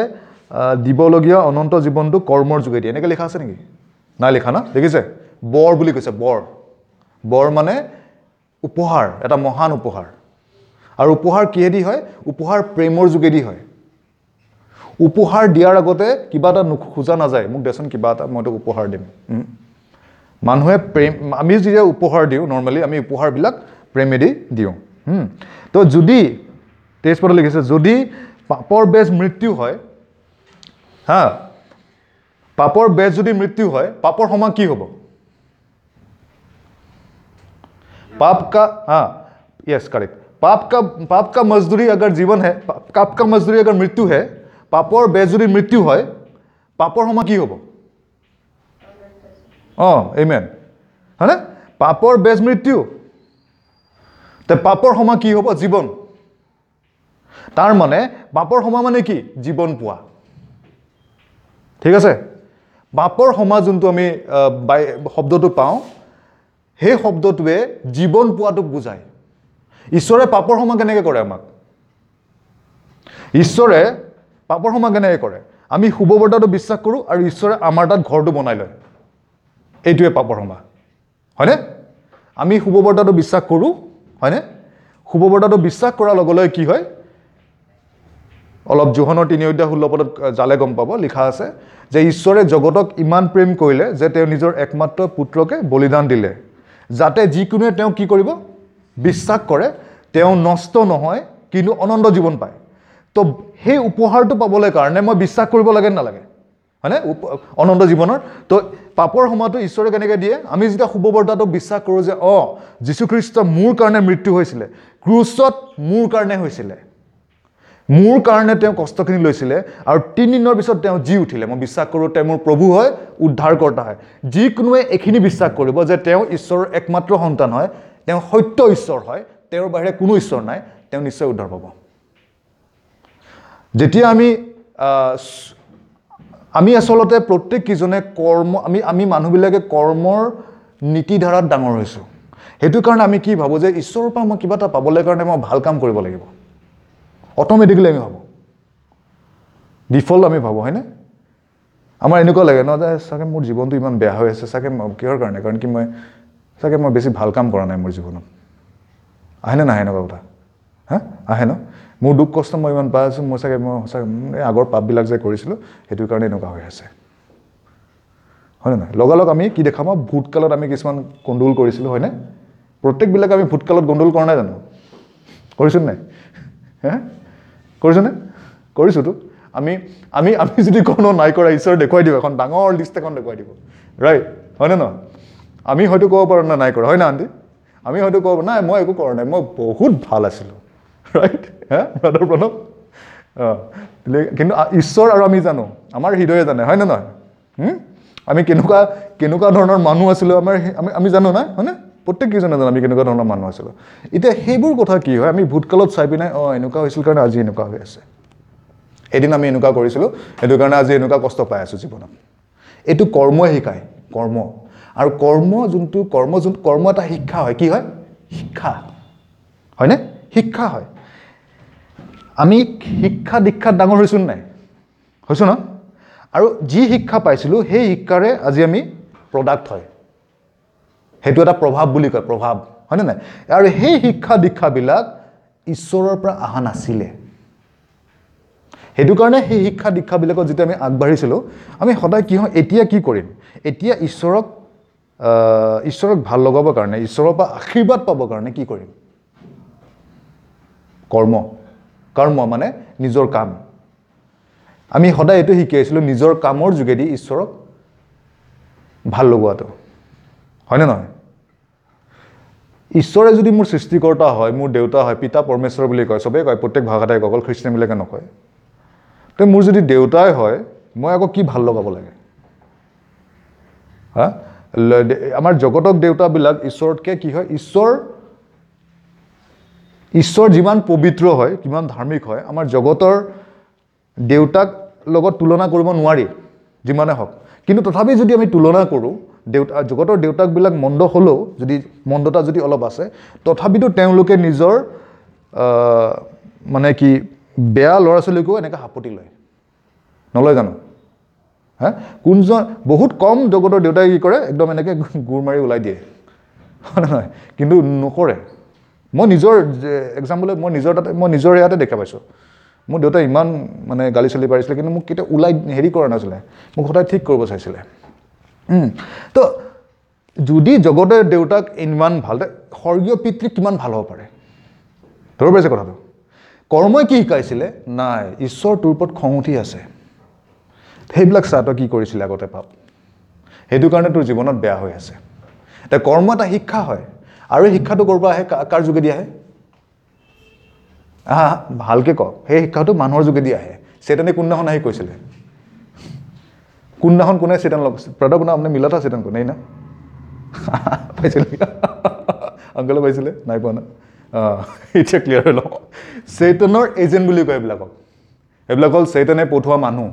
দিবলগীয়া অনন্ত জীৱনটো কৰ্মৰ যোগেদি, এনেকৈ লিখা আছে নেকি? নাই লিখা না? দেখিছে, বৰ বুলি কৈছে। বৰ, বৰ মানে উপহাৰ, এটা মহান উপহাৰ। আৰু উপহাৰ কিহেদি হয়? উপহাৰ প্ৰেমৰ যোগেদি হয়। উপহাৰ দিয়াৰ আগতে কিবা এটা খোজা নাযায়, মোক দেচোন কিবা এটা, মই তোক উপহাৰ দিম। মানুহে প্ৰেম, আমি যেতিয়া উপহাৰ দিওঁ নৰ্মেলি আমি উপহাৰবিলাক প্ৰেমেদি দিওঁ। তো যদি 23 পদত লিখিছে, যদি পাপৰ বেজ মৃত্যু হয়, হা, পাপৰ বেজ যদি মৃত্যু হয়, পাপৰ সমান কি হ'ব? পাপ কা, হা, য়েছ কাৰেক্ট। পাপ কা মজদুৰি अगर जीवन है, পাপ কা মজদুৰি अगर মৃত্যু है, পাপৰ বেজ যদি মৃত্যু হয়, পাপৰ সমান কি হ'ব? অঁ, আমেন, হয়নে? পাপৰ বেজ মৃত্যু, তে পাপৰ সমান কি হ'ব? জীৱন। তাৰ মানে পাপৰ সমান মানে কি? জীৱন পোৱা। ঠিক আছে? পাপৰ সমান যোনটো আমি শব্দটো পাওঁ, সেই শব্দটোৱে জীৱন পোৱাটোক বুজায়। ঈশ্বৰে পাপৰ সমান কেনেকৈ কৰে আমাক? ঈশ্বৰে পাপৰ সমান কেনেকৈ কৰে? আমি শুভবাৰ্তাটো বিশ্বাস কৰোঁ আৰু ঈশ্বৰে আমাৰ তাত ঘৰটো বনাই লয়, এইটোৱে পাপৰ ক্ষমা, হয়নে? আমি শুভবাৰ্তাটো বিশ্বাস কৰোঁ, হয়নে? শুভবাৰ্তাটো বিশ্বাস কৰাৰ লগে লগে কি হয়? অলপ যোহনৰ 3 অধ্যায় 16 পদত জালে গম পাব, লিখা আছে যে ঈশ্বৰে জগতক ইমান প্ৰেম কৰিলে যে তেওঁ নিজৰ একমাত্ৰ পুত্ৰকে বলিদান দিলে, যাতে যিকোনোৱে তেওঁ কি কৰিব? বিশ্বাস কৰে, তেওঁ নষ্ট নহয় কিন্তু অনন্ত জীৱন পায়। তো সেই উপহাৰটো পাবলৈ কাৰণে মই বিশ্বাস কৰিব লাগে নালাগে, হয়নে? অনন্ত জীৱনৰ। তো পাপৰ ক্ষমাটো ঈশ্বৰে কেনেকৈ দিয়ে? আমি যেতিয়া শুভবাৰ্তাটো বিশ্বাস কৰোঁ যে অঁ, যীশুখ্ৰীষ্ট মোৰ কাৰণে মৃত্যু হৈছিলে, ক্ৰুচত মোৰ কাৰণে হৈছিলে, মোৰ কাৰণে তেওঁ কষ্টখিনি লৈছিলে আৰু 3 দিনৰ পিছত তেওঁ জি উঠিলে, মই বিশ্বাস কৰোঁ তেওঁ মোৰ প্ৰভু হয়, উদ্ধাৰকৰ্তা হয়। যিকোনোৱে এইখিনি বিশ্বাস কৰিব যে তেওঁ ঈশ্বৰৰ একমাত্ৰ সন্তান হয়, তেওঁ সত্য ঈশ্বৰ হয়, তেওঁৰ বাহিৰে কোনো ঈশ্বৰ নাই, তেওঁ নিশ্চয় উদ্ধাৰ পাব। যেতিয়া আমি আচলতে প্ৰত্যেককেইজনে কৰ্ম, আমি মানুহবিলাকে কৰ্মৰ নীতিধাৰাত ডাঙৰ হৈছোঁ। সেইটো কাৰণে আমি কি ভাবোঁ যে ঈশ্বৰৰ পৰা মই কিবা এটা পাবলৈ কাৰণে মই ভাল কাম কৰিব লাগিব, অট'মেটিকেলি আমি ভাবোঁ। ডিফল্ট আমি ভাবোঁ, হয়নে? আমাৰ এনেকুৱা লাগে ন যে চাগে মোৰ জীৱনটো ইমান বেয়া হৈ আছে, চাগে কিহৰ কাৰণে, কাৰণ কি মই চাগে মই বেছি ভাল কাম কৰা নাই মোৰ জীৱনত। আহেনে নাহে এনেকুৱা কথা? হা, আহে ন? মোৰ দুখ কষ্ট মই ইমান পাই আছোঁ, মই চাগে মই সঁচাকৈ এই আগৰ পাপবিলাক যে কৰিছিলোঁ সেইটো কাৰণে এনেকুৱা হৈ আছে, হয়নে নহয়? লগালগ আমি কি দেখা পাওঁ, ভূতকালত আমি কিছুমান গণ্ডগোল কৰিছিলোঁ, হয়নে? প্ৰত্যেকবিলাক আমি ভূতকালত গণ্ডগোল কৰা নাই জানো? কৰিছোঁ নাই? হে, কৰিছোঁনে? কৰিছোঁতো। আমি আমি আমি যদি কোনো নাই কৰা, ঈশ্বৰে দেখুৱাই দিব, এখন ডাঙৰ লিষ্ট এখন দেখুৱাই দিব, ৰাইট? হয়নে নহয়? আমি হয়তো ক'ব পাৰোঁ না নাই কৰা, হয় না আণ্টি? আমি হয়তো ক'ব নাই মই একো কৰা নাই, মই বহুত ভাল আছিলোঁ, ৰাইট? হা ব্ৰাদাৰ প্ৰণৱ? অঁ, কিন্তু ঈশ্বৰ আৰু আমি জানো, আমাৰ হৃদয়ে জানে, হয়নে নহয়? আমি কেনেকুৱা কেনেকুৱা ধৰণৰ মানুহ আছিলোঁ, আমাৰ আমি আমি জানো নাই, হয়নে? প্ৰত্যেককেইজনে জানো আমি কেনেকুৱা ধৰণৰ মানুহ আছিলোঁ। এতিয়া সেইবোৰ কথা কি হয়, আমি ভূতকালত চাই পিনে অঁ এনেকুৱা হৈছিল কাৰণে আজি এনেকুৱা হৈ আছে, এদিন আমি এনেকুৱা কৰিছিলোঁ সেইটো কাৰণে আজি এনেকুৱা কষ্ট পাই আছোঁ জীৱনত। এইটো কৰ্মই শিকায়, কৰ্ম। আৰু কৰ্ম যোনটো কৰ্ম যোন কৰ্ম এটা শিক্ষা হয়, কি হয়? শিক্ষা, হয়নে? শিক্ষা হয়। আমি শিক্ষা দীক্ষাত ডাঙৰ হৈছোঁ নাই? হৈছোঁ ন? আৰু যি শিক্ষা পাইছিলোঁ সেই শিক্ষাৰে আজি আমি প্ৰডাক্ট হয়, সেইটো এটা প্ৰভাৱ বুলি কয়, প্ৰভাৱ, হয়নে নাই? আৰু সেই শিক্ষা দীক্ষাবিলাক ঈশ্বৰৰ পৰা অহা নাছিলে, সেইটো কাৰণে সেই শিক্ষা দীক্ষাবিলাকত যেতিয়া আমি আগবাঢ়িছিলোঁ, আমি সদায় কি হয়, এতিয়া কি কৰিম, এতিয়া ঈশ্বৰক ঈশ্বৰক ভাল লগাবৰ কাৰণে, ঈশ্বৰৰ পৰা আশীৰ্বাদ পাবৰ কাৰণে কি কৰিম? কৰ্ম। কৰ্ম মানে নিজৰ কাম। আমি সদায় এইটো শিকি আহিছিলোঁ, নিজৰ কামৰ যোগেদি ঈশ্বৰক ভাল লগোৱাটো, হয়নে নহয়? ঈশ্বৰে যদি মোৰ সৃষ্টিকৰ্তা হয়, মোৰ দেউতা হয়, পিতা পৰমেশ্বৰ বুলি কয়, চবেই কয়, প্ৰত্যেক ভাষাতে কয়, অকল খ্ৰীষ্টানবিলাকে নকয়। তো মোৰ যদি দেউতাই হয়, মই আকৌ কি ভাল লগাব লাগে? হা, আমাৰ জগতক দেউতাবিলাক ঈশ্বৰতকৈ কি হয়, ঈশ্বৰ ঈশ্বৰ যিমান পবিত্ৰ হয়, কিমান ধাৰ্মিক হয়, আমাৰ জগতৰ দেউতাক লগত তুলনা কৰিব নোৱাৰি যিমানে হওক। কিন্তু তথাপি যদি আমি তুলনা কৰোঁ, দেউতা জগতৰ দেউতাকবিলাক মন্দ হ'লেও, যদি মন্দতা যদি অলপ আছে, তথাপিতো তেওঁলোকে নিজৰ মানে কি বেয়া ল'ৰা ছোৱালীকো এনেকৈ সাপতি লয়, নলয় জানো? হা, কোনজন বহুত কম জগতৰ দেউতাই কি কৰে, একদম এনেকৈ গোৰ মাৰি ওলাই দিয়ে, হয় নহয়? কিন্তু নকৰে। মই নিজৰ এক্সাম্পল, মই নিজৰ তাতে, মই নিজৰ ইয়াতে দেখা পাইছোঁ। মোৰ দেউতাই ইমান মানে গালি চালি পাৰিছিলে, কিন্তু মোক কেতিয়াও ওলাই হেৰি কৰা নাছিলে, মোক সদায় ঠিক কৰিব চাইছিলে। তো যদি জগতৰ দেউতাক ইমান ভাল, স্বৰ্গীয় পিতৃ কিমান ভাল হ'ব পাৰে? ধৰিব পাৰিছে কথাটো? কৰ্মই কি শিকাইছিলে? নাই, ঈশ্বৰ তোৰ ওপৰত খং উঠি আছে, সেইবিলাক চা তই কি কৰিছিলে আগতে পাপ, সেইটো কাৰণে তোৰ জীৱনত বেয়া হৈ আছে। এতিয়া কৰ্ম এটা শিক্ষা হয়, আৰু এই শিক্ষাটো ক'ৰ পৰা আহে, কাৰ যোগেদি আহে? আহা ভালকৈ কওক, সেই শিক্ষাটো মানুহৰ যোগেদি আহে। চেতনে কোনদিনাখন আহি কৈছিলে? কোনদিনাখন কোনে চেতন লগ প্ৰতাপ না আপুনি মিলা থা চেতন কোনে না পাইছিলে? আংকলে পাইছিলে? নাই পোৱা না? অঁ, এতিয়া ক্লিয়াৰ হৈ লওঁ। চেতনৰ এজেণ্ট বুলি কয় এইবিলাকক। এইবিলাক হ'ল চেতনে পঠোৱা মানুহ।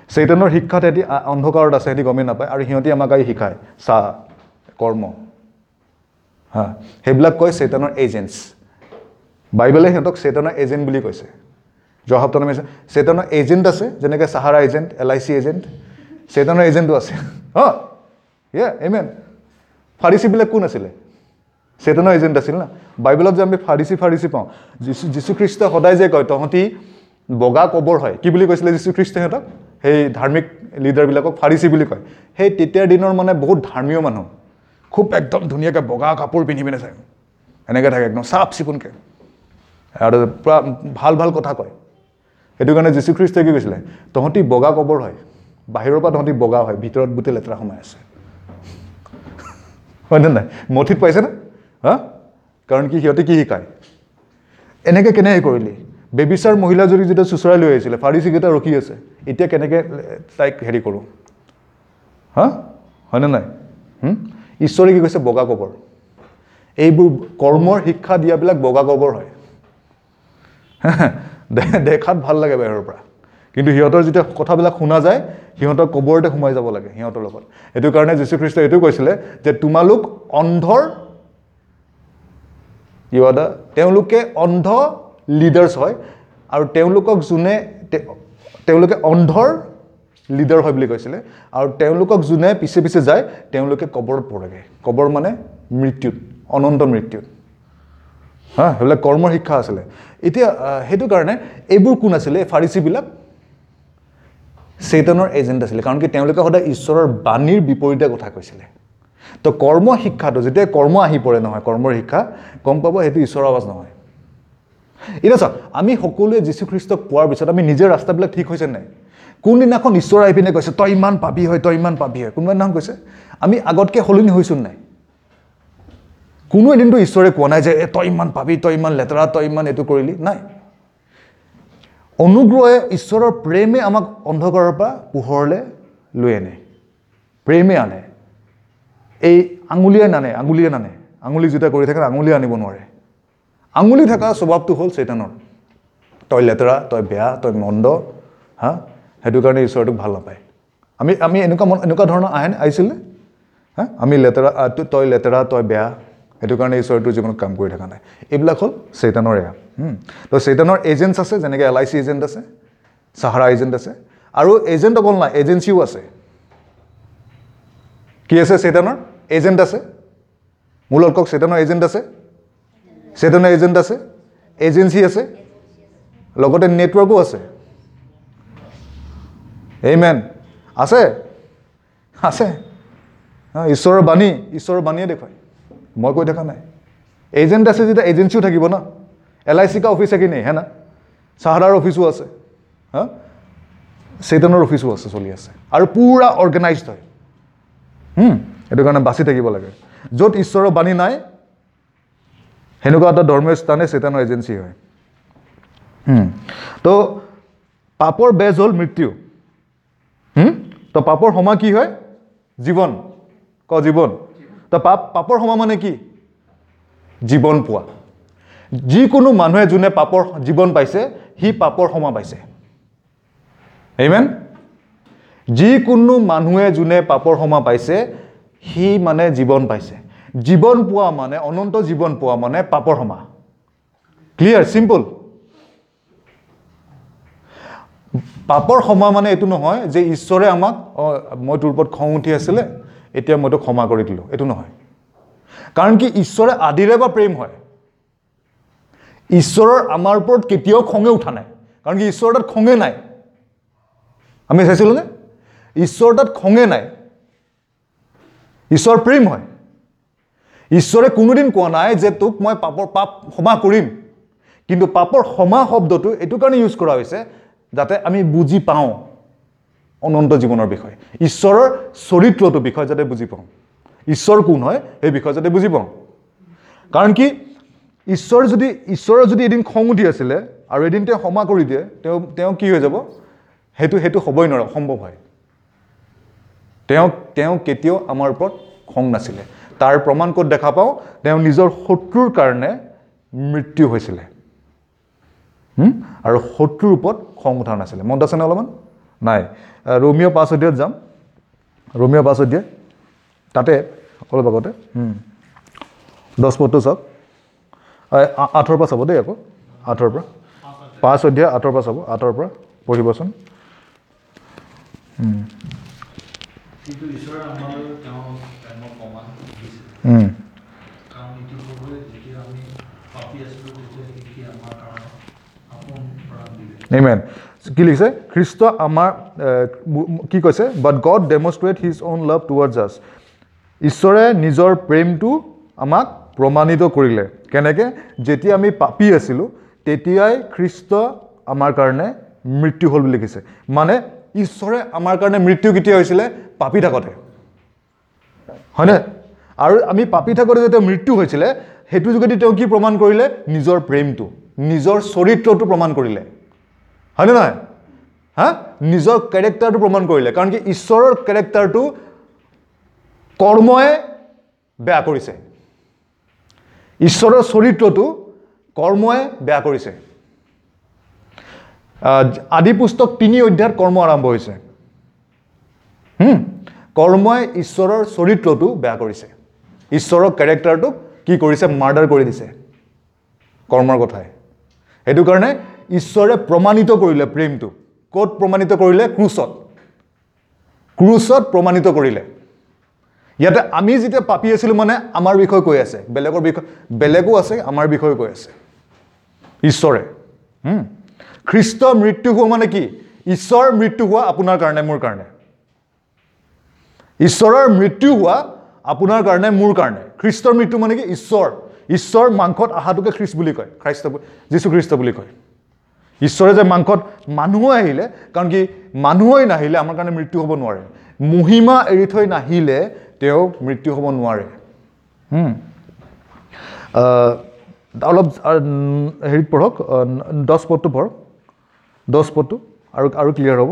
চেতনৰ শিক্ষাত সিহঁতি অন্ধকাৰত আছে, সিহঁতি গমেই নাপায়, আৰু সিহঁতি আমাক আহি শিকায় চা কৰ্ম। হা, সেইবিলাক কয় চেতনৰ এজেণ্টছ। বাইবেলে সিহঁতক চেতনৰ এজেণ্ট বুলি কৈছে। যোৱা সপ্তাহত আমি চেতনৰ এজেণ্ট আছে, যেনেকৈ Sahara agent, LIC agent, চেতনৰ এজেণ্টো আছে। অঁ, ইয়ে এমেন। ফাৰিচীবিলাক কোন আছিলে? চেতনৰ এজেণ্ট আছিল না। বাইবেলত যে আমি ফাৰিচী ফাৰিচী পাওঁ, যীশুখ্ৰীষ্টই সদায় যে কয় তহঁতি বগা কবৰ হয়, কি বুলি কৈছিলে যীশুখ্ৰীষ্টই সিহঁতক? সেই ধাৰ্মিক লিডাৰবিলাকক ফাৰিচী বুলি কয়। সেই তেতিয়াৰ দিনৰ মানে বহুত ধৰ্মীয় মানুহ, খুব একদম ধুনীয়াকৈ বগা কাপোৰ পিন্ধি পিনে চায়, এনেকৈ থাকে একদম চাফ চিকুণকৈ, আৰু পূৰা ভাল ভাল কথা কয়। সেইটো কাৰণে যীশুখ্ৰীষ্টই কি কৈছিলে? তহঁতি বগা কবৰ হয়, বাহিৰৰ পৰা তহঁতি বগা হয়, ভিতৰত গোটেই লেতেৰা সোমাই আছে, হয়নে নাই? মথিত পাইছেনে? হা, কাৰণ কি সিহঁতে কি শিকায়? এনেকৈ কেনেকৈ কৰিলি? বেবিচাৰ মহিলা যদি যেতিয়া চোঁচৰাই লৈ আহিছিলে, ফাৰিচীকেইটা ৰখি আছে, এতিয়া কেনেকৈ তাইক হেৰি কৰোঁ? হা, হয়নে নাই? ঈশ্বৰে কি কৈছে? বগা কবৰ। এইবোৰ কৰ্মৰ শিক্ষা দিয়াবিলাক বগা কবৰ হয়। দেখাত ভাল লাগে বাহিৰৰ পৰা, কিন্তু সিহঁতৰ যেতিয়া কথাবিলাক শুনা যায়, সিহঁতৰ কবৰতে সোমাই যাব লাগে সিহঁতৰ লগত। সেইটো কাৰণে যীশুখ্ৰীষ্টই এইটো কৈছিলে যে তোমালোক অন্ধৰ you are the, তেওঁলোকে অন্ধ লিডাৰ্ছ হয়, আৰু তেওঁলোকক যোনে তেওঁলোকে অন্ধৰ লিডাৰ হয় বুলি কৈছিলে। আৰু তেওঁলোকক যোনে পিছে পিছে যায় তেওঁলোকে কবৰত পৰেগৈ। কবৰ মানে মৃত্যুত, অনন্ত মৃত্যুত। হা, সেইবিলাক কৰ্মৰ শিক্ষা আছিলে। এতিয়া সেইটো কাৰণে এইবোৰ কোন আছিলে? ফাৰিচীবিলাক চেতনৰ এজেণ্ট আছিলে, কাৰণ কি তেওঁলোকে সদায় ঈশ্বৰৰ বাণীৰ বিপৰীতে কথা কৈছিলে। তো কৰ্ম শিক্ষাটো যেতিয়া কৰ্ম আহি পৰে নহয়, কৰ্মৰ শিক্ষা, গম পাব সেইটো ঈশ্বৰৰ আৱাজ নহয়। এতিয়া চাওক, আমি সকলোৱে যীশুখ্ৰীষ্টক পোৱাৰ পিছত আমি নিজৰ ৰাস্তাবিলাক ঠিক হৈছে নাই? কোনদিনাখন ঈশ্বৰ আহি পিনে কৈছে তই ইমান পাবি হয়, তই ইমান পাবি হয়, কোনোবা দিনাখন কৈছে? আমি আগতকৈ সলনি হৈছোঁ নাই? কোনো এদিনতো ঈশ্বৰে কোৱা নাই যে তই ইমান পাবি, তই ইমান লেতেৰা, তই ইমান এইটো কৰিলি, নাই। অনুগ্ৰহে, ঈশ্বৰৰ প্ৰেমে আমাক অন্ধকাৰৰ পৰা পোহৰলৈ লৈ আনে, প্ৰেমে আনে। এই আঙুলিয়ে নানে, আঙুলিয়ে নানে, আঙুলি যেতিয়া কৰি থাকে আঙুলিয়ে আনিব নোৱাৰে। আঙুলি থকা স্বভাৱটো হ'ল চেতানৰ, তই লেতেৰা, তই বেয়া, তই মন্দ, হা, সেইটো কাৰণে ঈশ্বৰটোক ভাল নাপায়। আমি আমি এনেকুৱা মন, এনেকুৱা ধৰণৰ আহে আহিছিলনে? হা, আমি লেতেৰা, তই লেতেৰা, তই বেয়া, সেইটো কাৰণে ঈশ্বৰটোৰ জীৱনত কাম কৰি থকা নাই। এইবিলাক হ'ল চেতানৰ এয়া। তো চেতানৰ এজেণ্টছ আছে, যেনেকৈ LIC agent আছে, চাহাৰা এজেণ্ট আছে, আৰু এজেণ্ট অকল নাই, এজেঞ্চিও আছে। কি আছে? চেতানৰ এজেণ্ট আছে। মোৰ লগত কওক, চেতানৰ এজেণ্ট আছে, চেতনৰ এজেণ্ট আছে, এজেঞ্চি আছে, লগতে নেটৱৰ্কো আছে। আমেন। আছে, আছে। ঈশ্বৰৰ বাণী, ঈশ্বৰৰ বাণীয়ে দেখুৱায়, মই কৈ থকা নাই। এজেণ্ট আছে যেতিয়া এজেঞ্চিও থাকিব ন। LIC কা অফিচ है कि नहीं, है ना? চাহাৰাৰ অফিচো আছে, হা, চেতনৰ অফিচো আছে, চলি আছে, আৰু পূৰা অৰ্গেনাইজড হয়। সেইটো কাৰণে বাচি থাকিব লাগে। য'ত ঈশ্বৰৰ বাণী নাই, সেনেকুৱা এটা ধৰ্মীয় স্থানে চেতনৰ এজেঞ্চি হয়। তো পাপৰ বেজ হ'ল মৃত্যু। তো পাপৰ সমা কি হয়? জীৱন। ক জীৱন। তো পাপৰ সমা মানে কি? জীৱন পোৱা। যিকোনো মানুহে যোনে পাপৰ জীৱন পাইছে, সি পাপৰ সমা পাইছে। আমেন। যিকোনো মানুহে যোনে পাপৰ সমা পাইছে, সি মানে জীৱন পাইছে। জীৱন পোৱা মানে, অনন্ত জীৱন পোৱা মানে পাপৰ সমা। Clear, simple. পাপৰ ক্ষমা মানে এইটো নহয় যে ঈশ্বৰে আমাক, মই তোৰ ওপৰত খং উঠি আছিলে, এতিয়া মই তোক ক্ষমা কৰি দিলোঁ, এইটো নহয়। কাৰণ কি ঈশ্বৰে আদিৰে বা প্ৰেম হয়। ঈশ্বৰৰ আমাৰ ওপৰত কেতিয়াও খঙে উঠা নাই, কাৰণ কি ঈশ্বৰৰ তাত খঙে নাই। আমি চাইছিলোঁ নে? ঈশ্বৰৰ তাত খঙে নাই, ঈশ্বৰ প্ৰেম হয়। ঈশ্বৰে কোনোদিন কোৱা নাই যে তোক মই পাপ ক্ষমা কৰিম, কিন্তু পাপৰ ক্ষমা শব্দটো এইটো কাৰণে ইউজ কৰা হৈছে যাতে আমি বুজি পাওঁ অনন্ত জীৱনৰ বিষয়ে, ঈশ্বৰৰ চৰিত্ৰটোৰ বিষয়ে যাতে বুজি পাওঁ, ঈশ্বৰ কোন হয় সেই বিষয়ে যাতে বুজি পাওঁ। কাৰণ কি ঈশ্বৰৰ যদি এদিন খং উঠি আছিলে আৰু এদিন তেওঁ ক্ষমা কৰি দিয়ে, তেওঁ কি হৈ যাব? সেইটো হ'বই নোৱাৰে, অসম্ভৱ হয়। তেওঁ কেতিয়াও আমাৰ ওপৰত খং নাছিলে। তাৰ প্ৰমাণ ক'ত দেখা পাওঁ? তেওঁ নিজৰ শত্ৰুৰ কাৰণে মৃত্যু হৈছিলে, আৰু শত্ৰুৰ ওপৰত খং উঠা নাছিলে। মনত আছেনে অলপমান? নাই। ৰোমিঅ' 5 অধ্যায়ত যাম। ৰোমিঅ' 5 অধ্যায়, তাতে অলপ আগতে 10 পদটো চাওক, 8ৰ পৰা চাব দেই, আকৌ 8ৰ পৰা, 5 অধ্যায় 8ৰ পৰা চাব, 8ৰ পৰা পঢ়িবচোন। কিন্তু ঈশ্বৰে আমালৈ তেওঁৰ প্ৰেমৰ প্ৰমাণ দিছে, কাৰণ ইতিপূৰ্বে যেতিয়া আমি পাপী আছিলোঁ তেতিয়া সি আমাৰ কাৰণে আপোন প্ৰাণ দিলে। আমেন। কি লিখিছে? খ্ৰীষ্ট আমাৰ কি কৈছে? But God demonstrate his own love towards us. ঈশ্বৰে নিজৰ প্ৰেমটো আমাক প্ৰমাণিত কৰিলে। কেনেকৈ? যেতিয়া আমি পাপী আছিলোঁ তেতিয়াই খ্ৰীষ্ট আমাৰ কাৰণে মৃত্যু হ'ল বুলি লিখিছে। মানে ঈশ্বৰে আমাৰ কাৰণে মৃত্যু কেতিয়া হৈছিলে? পাপী থাকোঁতে, হয়নে? আৰু আমি পাপী থাকোঁতে যেতিয়া মৃত্যু হৈছিলে, সেইটো যোগেদি তেওঁ কি প্ৰমাণ কৰিলে? নিজৰ প্ৰেমটো, নিজৰ চৰিত্ৰটো প্ৰমাণ কৰিলে, হয়নে নহয়? হা, নিজৰ কেৰেক্টাৰটো প্ৰমাণ কৰিলে। কাৰণ কি ঈশ্বৰৰ কেৰেক্টাৰটো কৰ্মই বেয়া কৰিছে, ঈশ্বৰৰ চৰিত্ৰটো কৰ্মই বেয়া কৰিছে। আদি পুস্তক 3 অধ্যায়ত কৰ্ম আৰম্ভ হৈছে। কৰ্মই ঈশ্বৰৰ চৰিত্ৰটো বেয়া কৰিছে, ঈশ্বৰৰ কেৰেক্টাৰটোক কি কৰিছে? মাৰ্ডাৰ কৰি দিছে কৰ্মৰ কথাই। সেইটো কাৰণে ঈশ্বৰে প্ৰমাণিত কৰিলে প্ৰেমটো। ক'ত প্ৰমাণিত কৰিলে? ক্ৰুচত। ক্ৰুচত প্ৰমাণিত কৰিলে। ইয়াতে আমি যেতিয়া পাপী আছিলোঁ মানে আমাৰ বিষয়ে কৈ আছে, বেলেগৰ বিষয়ে বেলেগো আছে, আমাৰ বিষয়ে কৈ আছে ঈশ্বৰে। খ্ৰীষ্ট মৃত্যু হোৱা মানে কি? ঈশ্বৰ মৃত্যু হোৱা আপোনাৰ কাৰণে, মোৰ কাৰণে। ঈশ্বৰৰ মৃত্যু হোৱা আপোনাৰ কাৰণে, মোৰ কাৰণে। খ্ৰীষ্টৰ মৃত্যু মানে কি? ঈশ্বৰ, ঈশ্বৰ মাংসত অহাটোকে খ্ৰীষ্ট বুলি কয়, খ্ৰীষ্ট যীশু খ্ৰীষ্ট বুলি কয়। ঈশ্বৰে যে মাংসত মানুহ আহিলে, কাৰণ কি মানুহেই নাহিলে আমাৰ কাৰণে মৃত্যু হ'ব নোৱাৰে। মহিমা এৰি থৈ নাহিলে তেওঁ মৃত্যু হ'ব নোৱাৰে। অলপ হেৰিত পঢ়ক, 10 পদটো পঢ়ক, 10 পদটো আৰু আৰু ক্লিয়াৰ হ'ব।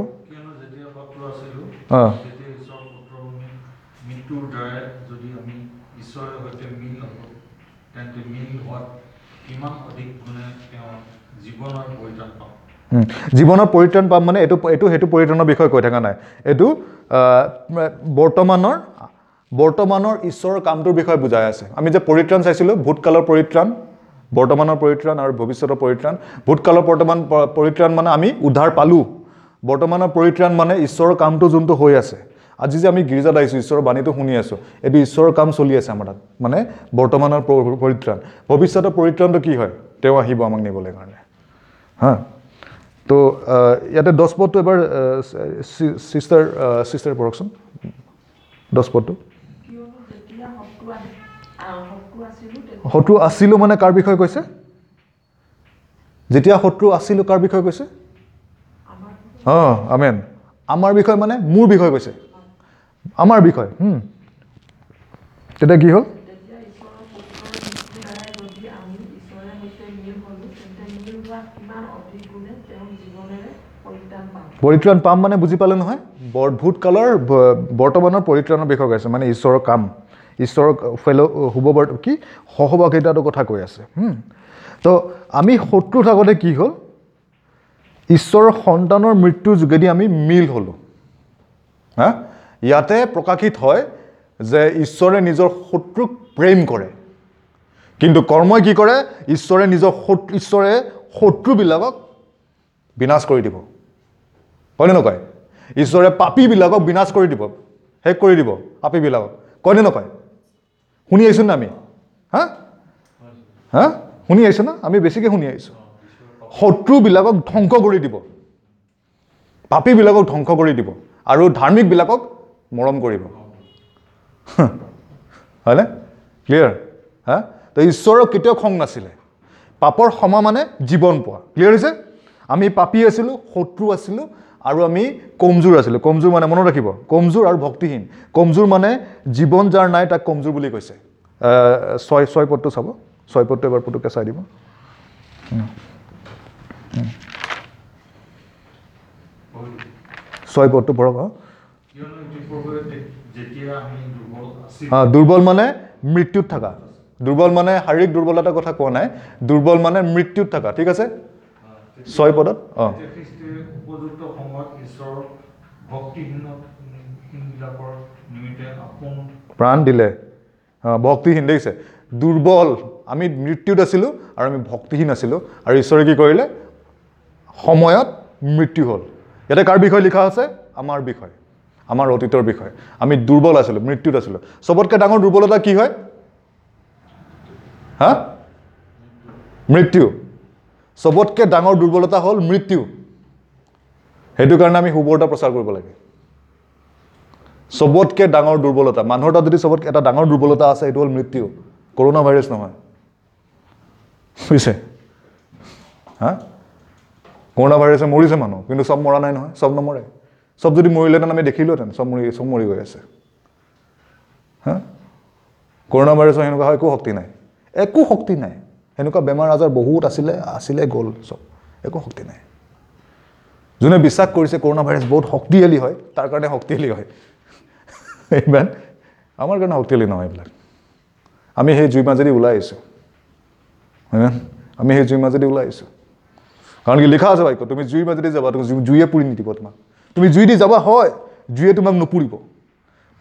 জীৱনৰ পৰিত্ৰাণ পাম মানে এইটো এইটো সেইটো পৰিত্ৰাণৰ বিষয়ে কৈ থকা নাই, এইটো বৰ্তমানৰ বৰ্তমানৰ ঈশ্বৰৰ কামটোৰ বিষয়ে বুজাই আছে। আমি যে পৰিত্ৰাণ চাইছিলোঁ, ভূতকালৰ পৰিত্ৰাণ, বৰ্তমানৰ পৰিত্ৰাণ আৰু ভৱিষ্যতৰ পৰিত্ৰাণ। ভূতকালৰ বৰ্তমান পৰিত্ৰাণ মানে আমি উদ্ধাৰ পালোঁ। বৰ্তমানৰ পৰিত্ৰাণ মানে ঈশ্বৰৰ কামটো যোনটো হৈ আছে। আজি যে আমি গীৰ্জাত আহিছোঁ, ঈশ্বৰৰ বাণীটো শুনি আছোঁ, এইটো ঈশ্বৰৰ কাম চলি আছে আমাৰ তাত, মানে বৰ্তমানৰ পৰিত্ৰাণ। ভৱিষ্যতৰ পৰিত্ৰাণটো কি হয়? তেওঁ আহিব আমাক নিবলৈ কাৰণে। হা, তো ইয়াতে 10 পদটো এবাৰ চিষ্টাৰ চিষ্টাৰ পঢ়কচোন, 10 পদটো। শত্ৰু আছিলোঁ মানে কাৰ বিষয়ে কৈছে? যেতিয়া শত্ৰু আছিলোঁ কাৰ বিষয়ে কৈছে? অঁ, আমেন। আমাৰ বিষয় মানে মোৰ বিষয়ে কৈছে, আমাৰ বিষয়। তেতিয়া কি হ'ল? পৰিত্ৰাণ পাম মানে বুজি পালে নহয়? ভূতকালৰ বৰ্তমানৰ পৰিত্ৰাণৰ বিষয়ে কৈছে, মানে ঈশ্বৰৰ কাম, ঈশ্বৰৰ ফেল' শুভ কি সহভাগিতাটোৰ কথা কৈ আছে। তো আমি শত্ৰু থাকোঁতে কি হ'ল? ঈশ্বৰৰ সন্তানৰ মৃত্যুৰ যোগেদি আমি মিল হ'লোঁ। হা, ইয়াতে প্ৰকাশিত হয় যে ঈশ্বৰে নিজৰ শত্ৰুক প্ৰেম কৰে, কিন্তু কৰ্মই কি কৰে? ঈশ্বৰে নিজৰ ঈশ্বৰে শত্ৰুবিলাকক বিনাশ কৰি দিব। কয়নে নকয়? ঈশ্বৰে পাপীবিলাকক বিনাশ কৰি দিব, শেষ কৰি দিব পাপীবিলাকক। কয়নে নকয়? শুনি আহিছোঁ না আমি? হা হা শুনি আহিছোঁ না আমি? বেছিকৈ শুনি আহিছোঁ। শত্ৰুবিলাকক ধ্বংস কৰি দিব, পাপীবিলাকক ধ্বংস কৰি দিব আৰু ধাৰ্মিকবিলাকক মৰম কৰিব। হয়নে? ক্লিয়াৰ? হা, তো ঈশ্বৰৰ কেতিয়াও খং নাছিলে। পাপৰ ক্ষমা মানে জীৱন পোৱা। ক্লিয়াৰ হৈছে? আমি পাপী আছিলোঁ, শত্ৰু আছিলোঁ আৰু আমি কমজোৰ আছিলোঁ। কমজোৰ মানে মনত ৰাখিব, কমজোৰ আৰু ভক্তিহীন। কমজোৰ মানে জীৱন যাৰ নাই তাক কমজোৰ বুলি কৈছে। 6 পদটো চাব, 6 পদটো এবাৰ পুতুককৈ চাই দিব। 6 পদটো পঢ়ক। অঁ, দুৰ্বল মানে মৃত্যুত থকা। দুৰ্বল মানে শাৰীৰিক দুৰ্বলতাৰ কথা কোৱা নাই, দুৰ্বল মানে মৃত্যুত থকা। ঠিক আছে, 6 পদত। অঁ, প্ৰাণ দিলে। অঁ, ভক্তিহীন, দেখিছে? দুৰ্বল, আমি মৃত্যুত আছিলোঁ আৰু আমি ভক্তিহীন আছিলোঁ, আৰু ঈশ্বৰে কি কৰিলে? সময়ত মৃত্যু হ'ল। ইয়াতে কাৰ বিষয়ে লিখা আছে? আমাৰ বিষয়ে, আমাৰ অতীতৰ বিষয়ে। আমি দুৰ্বল আছিলোঁ, মৃত্যুত আছিলোঁ। চবতকৈ ডাঙৰ দুৰ্বলতা কি হয়? হা, মৃত্যু। চবতকৈ ডাঙৰ দুৰ্বলতা হ'ল মৃত্যু। সেইটো কাৰণে আমি সুবাৰ্তা প্ৰচাৰ কৰিব লাগে। চবতকৈ ডাঙৰ দুৰ্বলতা মানুহৰ তাত যদি চবতকৈ এটা ডাঙৰ দুৰ্বলতা আছে, সেইটো হ'ল মৃত্যু। কৰোণা ভাইৰাছ নহয়, বুজিছে? হা, কৰোণা ভাইৰাছে মৰিছে মানুহ, কিন্তু চব মৰা নাই নহয়, চব নমৰে। চব যদি মৰিলেহেঁতেন আমি দেখিলোহেঁতেন, চব মৰি গৈ আছে। হা, কৰোণা ভাইৰাছৰ সেনেকুৱা হয়, একো শক্তি নাই, একো শক্তি নাই। সেনেকুৱা বেমাৰ আজাৰ বহুত আছিলে, আছিলে গ'ল চব, একো শক্তি নাই। যোনে বিশ্বাস কৰিছে কৰোণা ভাইৰাছ বহুত শক্তিশালী হয়, তাৰ কাৰণে শক্তিশালী হয়। ইমান আমাৰ কাৰণে শক্তিশালী নহয় এইবিলাক। আমি সেই জুই মাজেদি ওলাই আহিছোঁ, হয়নে? আমি সেই জুই মাজেদি ওলাই আহিছোঁ। কাৰণ কি লিখা আছে বাক্য, তুমি জুইৰ মাজেদি যাবা, তুমি জুয়ে পুৰি নিদিব তোমাক। তুমি জুই দি যাবা হয়, জুয়ে তোমাক নুপুৰিব।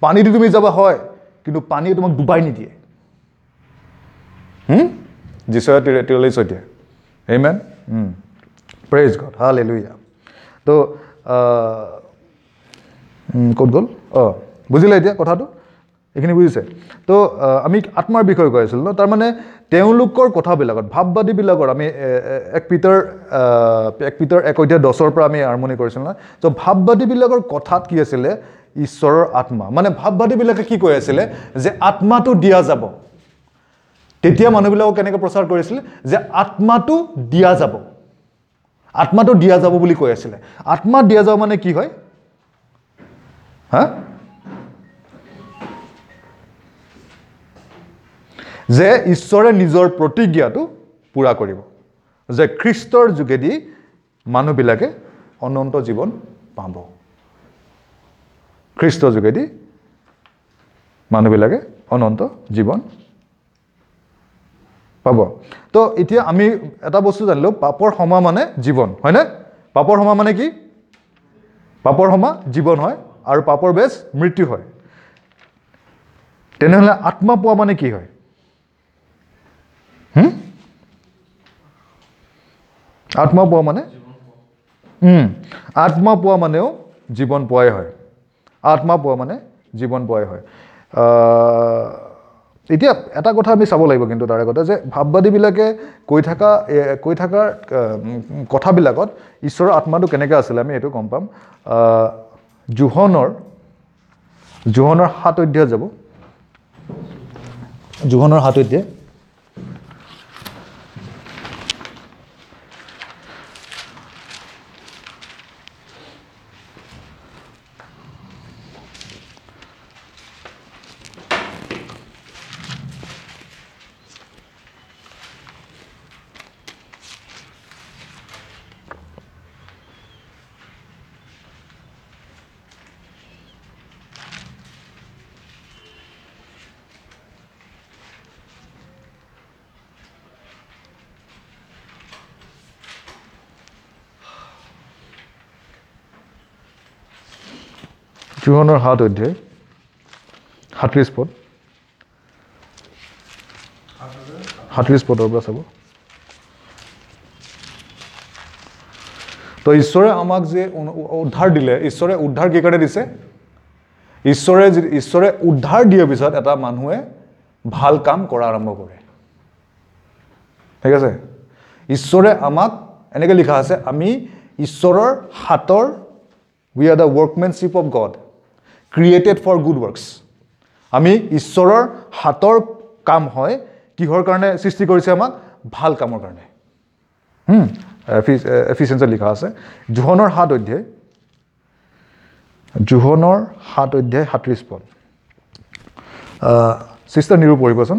পানী দি তুমি যাবা হয়, কিন্তু পানীয়ে তোমাক ডুবাই নিদিয়ে। যিচয়া 43 অধ্যায়। Amen. Praise God, hallelujah. তো ক'ত গ'ল? অঁ, বুজিলে এতিয়া কথাটো, এইখিনি বুজিছে? তো আমি আত্মাৰ বিষয়ে কৈ আছিলোঁ ন। তাৰমানে তেওঁলোকৰ কথাবিলাকত, ভাৱবাদীবিলাকৰ, আমি এক পিতৰ 1 অধ্যায় 10ৰ পৰা আমি আৰম্ভণি কৰিছিলোঁ ন। তো ভাৱবাদীবিলাকৰ কথাত কি আছিলে? ঈশ্বৰৰ আত্মা। মানে ভাৱবাদীবিলাকে কি কৈ আছিলে? যে আত্মাটো দিয়া যাব। তেতিয়া মানুহবিলাকক কেনেকৈ প্ৰচাৰ কৰিছিলে? যে আত্মাটো দিয়া যাব, আত্মাটো দিয়া যাব বুলি কৈ আছিলে। আত্মা দিয়া যাব মানে কি হয়? হা, যে ঈশ্বৰে নিজৰ প্ৰতিজ্ঞাটো পূৰা কৰিব, যে খ্ৰীষ্টৰ যোগেদি মানুহবিলাকে অনন্ত জীৱন পাব। খ্ৰীষ্টৰ যোগেদি মানুহবিলাকে অনন্ত জীৱন পাব। তো এতিয়া আমি এটা বস্তু জানিলোঁ, পাপৰ ক্ষমা মানে জীৱন, হয়নে? পাপৰ ক্ষমা মানে কি? পাপৰ ক্ষমা জীৱন হয় আৰু পাপৰ বেজ মৃত্যু হয়। তেনেহ'লে আত্মা পোৱা মানে কি হয়? আত্মা পোৱা মানে আত্মা পোৱা মানেও জীৱন পোৱাই হয়। আত্মা পোৱা মানে জীৱন পোৱাই হয়। এতিয়া এটা কথা আমি চাব লাগিব কিন্তু তাৰ আগতে, যে ভাৱবাদীবিলাকে কৈ থকাৰ কথাবিলাকত ঈশ্বৰৰ আত্মাটো কেনেকৈ আছিলে আমি এইটো গম পাম। যোহনৰ 7 অধ্যায় যাব, যোহনৰ 7 অধ্যায় যোহনৰ 7 অধ্যায় 37 পদ, 37 পদৰ পৰা চাব। তো ঈশ্বৰে আমাক যে উদ্ধাৰ দিলে, ঈশ্বৰে উদ্ধাৰ কি কাৰণে দিছে? ঈশ্বৰে উদ্ধাৰ দিয়াৰ পিছত এটা মানুহে ভাল কাম কৰা আৰম্ভ কৰে। ঠিক আছে? ঈশ্বৰে আমাক এনেকৈ লিখা আছে, আমি ঈশ্বৰৰ হাতৰ, we are the workmanship of God, created for good works. আমি ঈশ্বৰৰ হাতৰ কাম হয়, কিহৰ কাৰণে সৃষ্টি কৰিছে আমাক? ভাল কামৰ কাৰণে। এফিচিয়েঞ্চত লিখা আছে, যোহনৰ 7 অধ্যায়, যোহনৰ 7 অধ্যায় 37 পদ। চিষ্টাৰ নিৰু পঢ়িবচোন।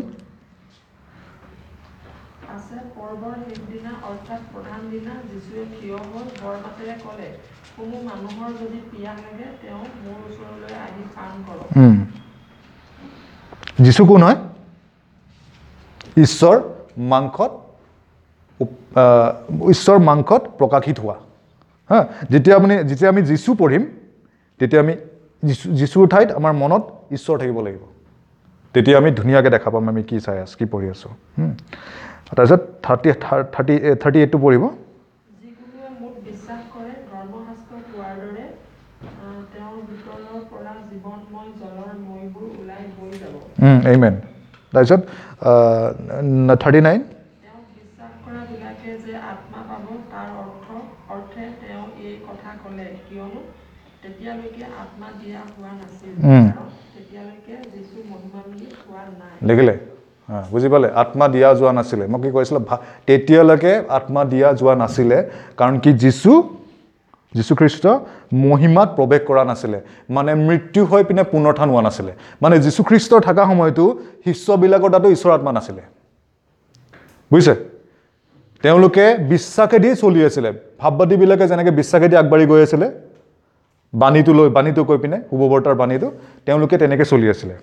যীশু কোন হয়? ঈশ্বৰ মাংসত প্ৰকাশিত হোৱা। হা, যেতিয়া আমি যীশু পঢ়িম, তেতিয়া আমি যীশুৰ ঠাইত আমাৰ মনত ঈশ্বৰ থাকিব লাগিব। তেতিয়া আমি ধুনীয়াকৈ দেখা পাম আমি কি চাই আছোঁ, কি পঢ়ি আছোঁ। তাৰপিছত 38টো পঢ়িব। Amen. তাৰপিছত 39, দেখিলে? বুজি পালে? আত্মা দিয়া যোৱা নাছিলে। মই কি কৈছিলোঁ? তেতিয়ালৈকে আত্মা দিয়া যোৱা নাছিলে, কাৰণ কি যীশুখ্ৰীষ্ট মহিমাত প্ৰৱেশ কৰা নাছিলে, মানে মৃত্যু হৈ পিনে পুনৰুত্থান হোৱা নাছিলে। মানে যীশুখ্ৰীষ্টৰ থকা সময়তো শিষ্যবিলাকৰ তাতো ঈশ্বৰ আত্মা নাছিলে, বুজিছে? তেওঁলোকে বিশ্বাসেদি চলি আছিলে। ভাৱবাদীবিলাকে যেনেকৈ বিশ্বাসেদি আগবাঢ়ি গৈ আছিলে, বাণীটো লৈ, বাণীটো কৈ পিনে, শুভবাৰ্তাৰ বাণীটো, তেওঁলোকে তেনেকৈ চলি আছিলে।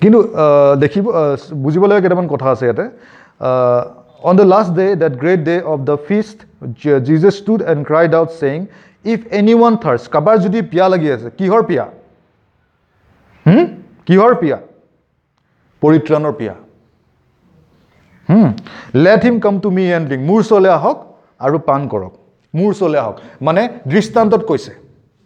কিন্তু দেখিব, বুজিবলগীয়া কেইটামান কথা আছে ইয়াতে। On the last day, that great day of the feast, Jesus stood and cried out, saying, If anyone thirsts, কাবাৰ যদি পিয়া লাগি আছে, কিহৰ পিয়া? কিহৰ পিয়া? পৰিত্ৰাণৰ পিয়া। Let him come to me and drink. মোৰ ওচৰলৈ আহক আৰু পান কৰক। মোৰ ওচৰলৈ আহক। মানে দৃষ্টান্তত কৈছে,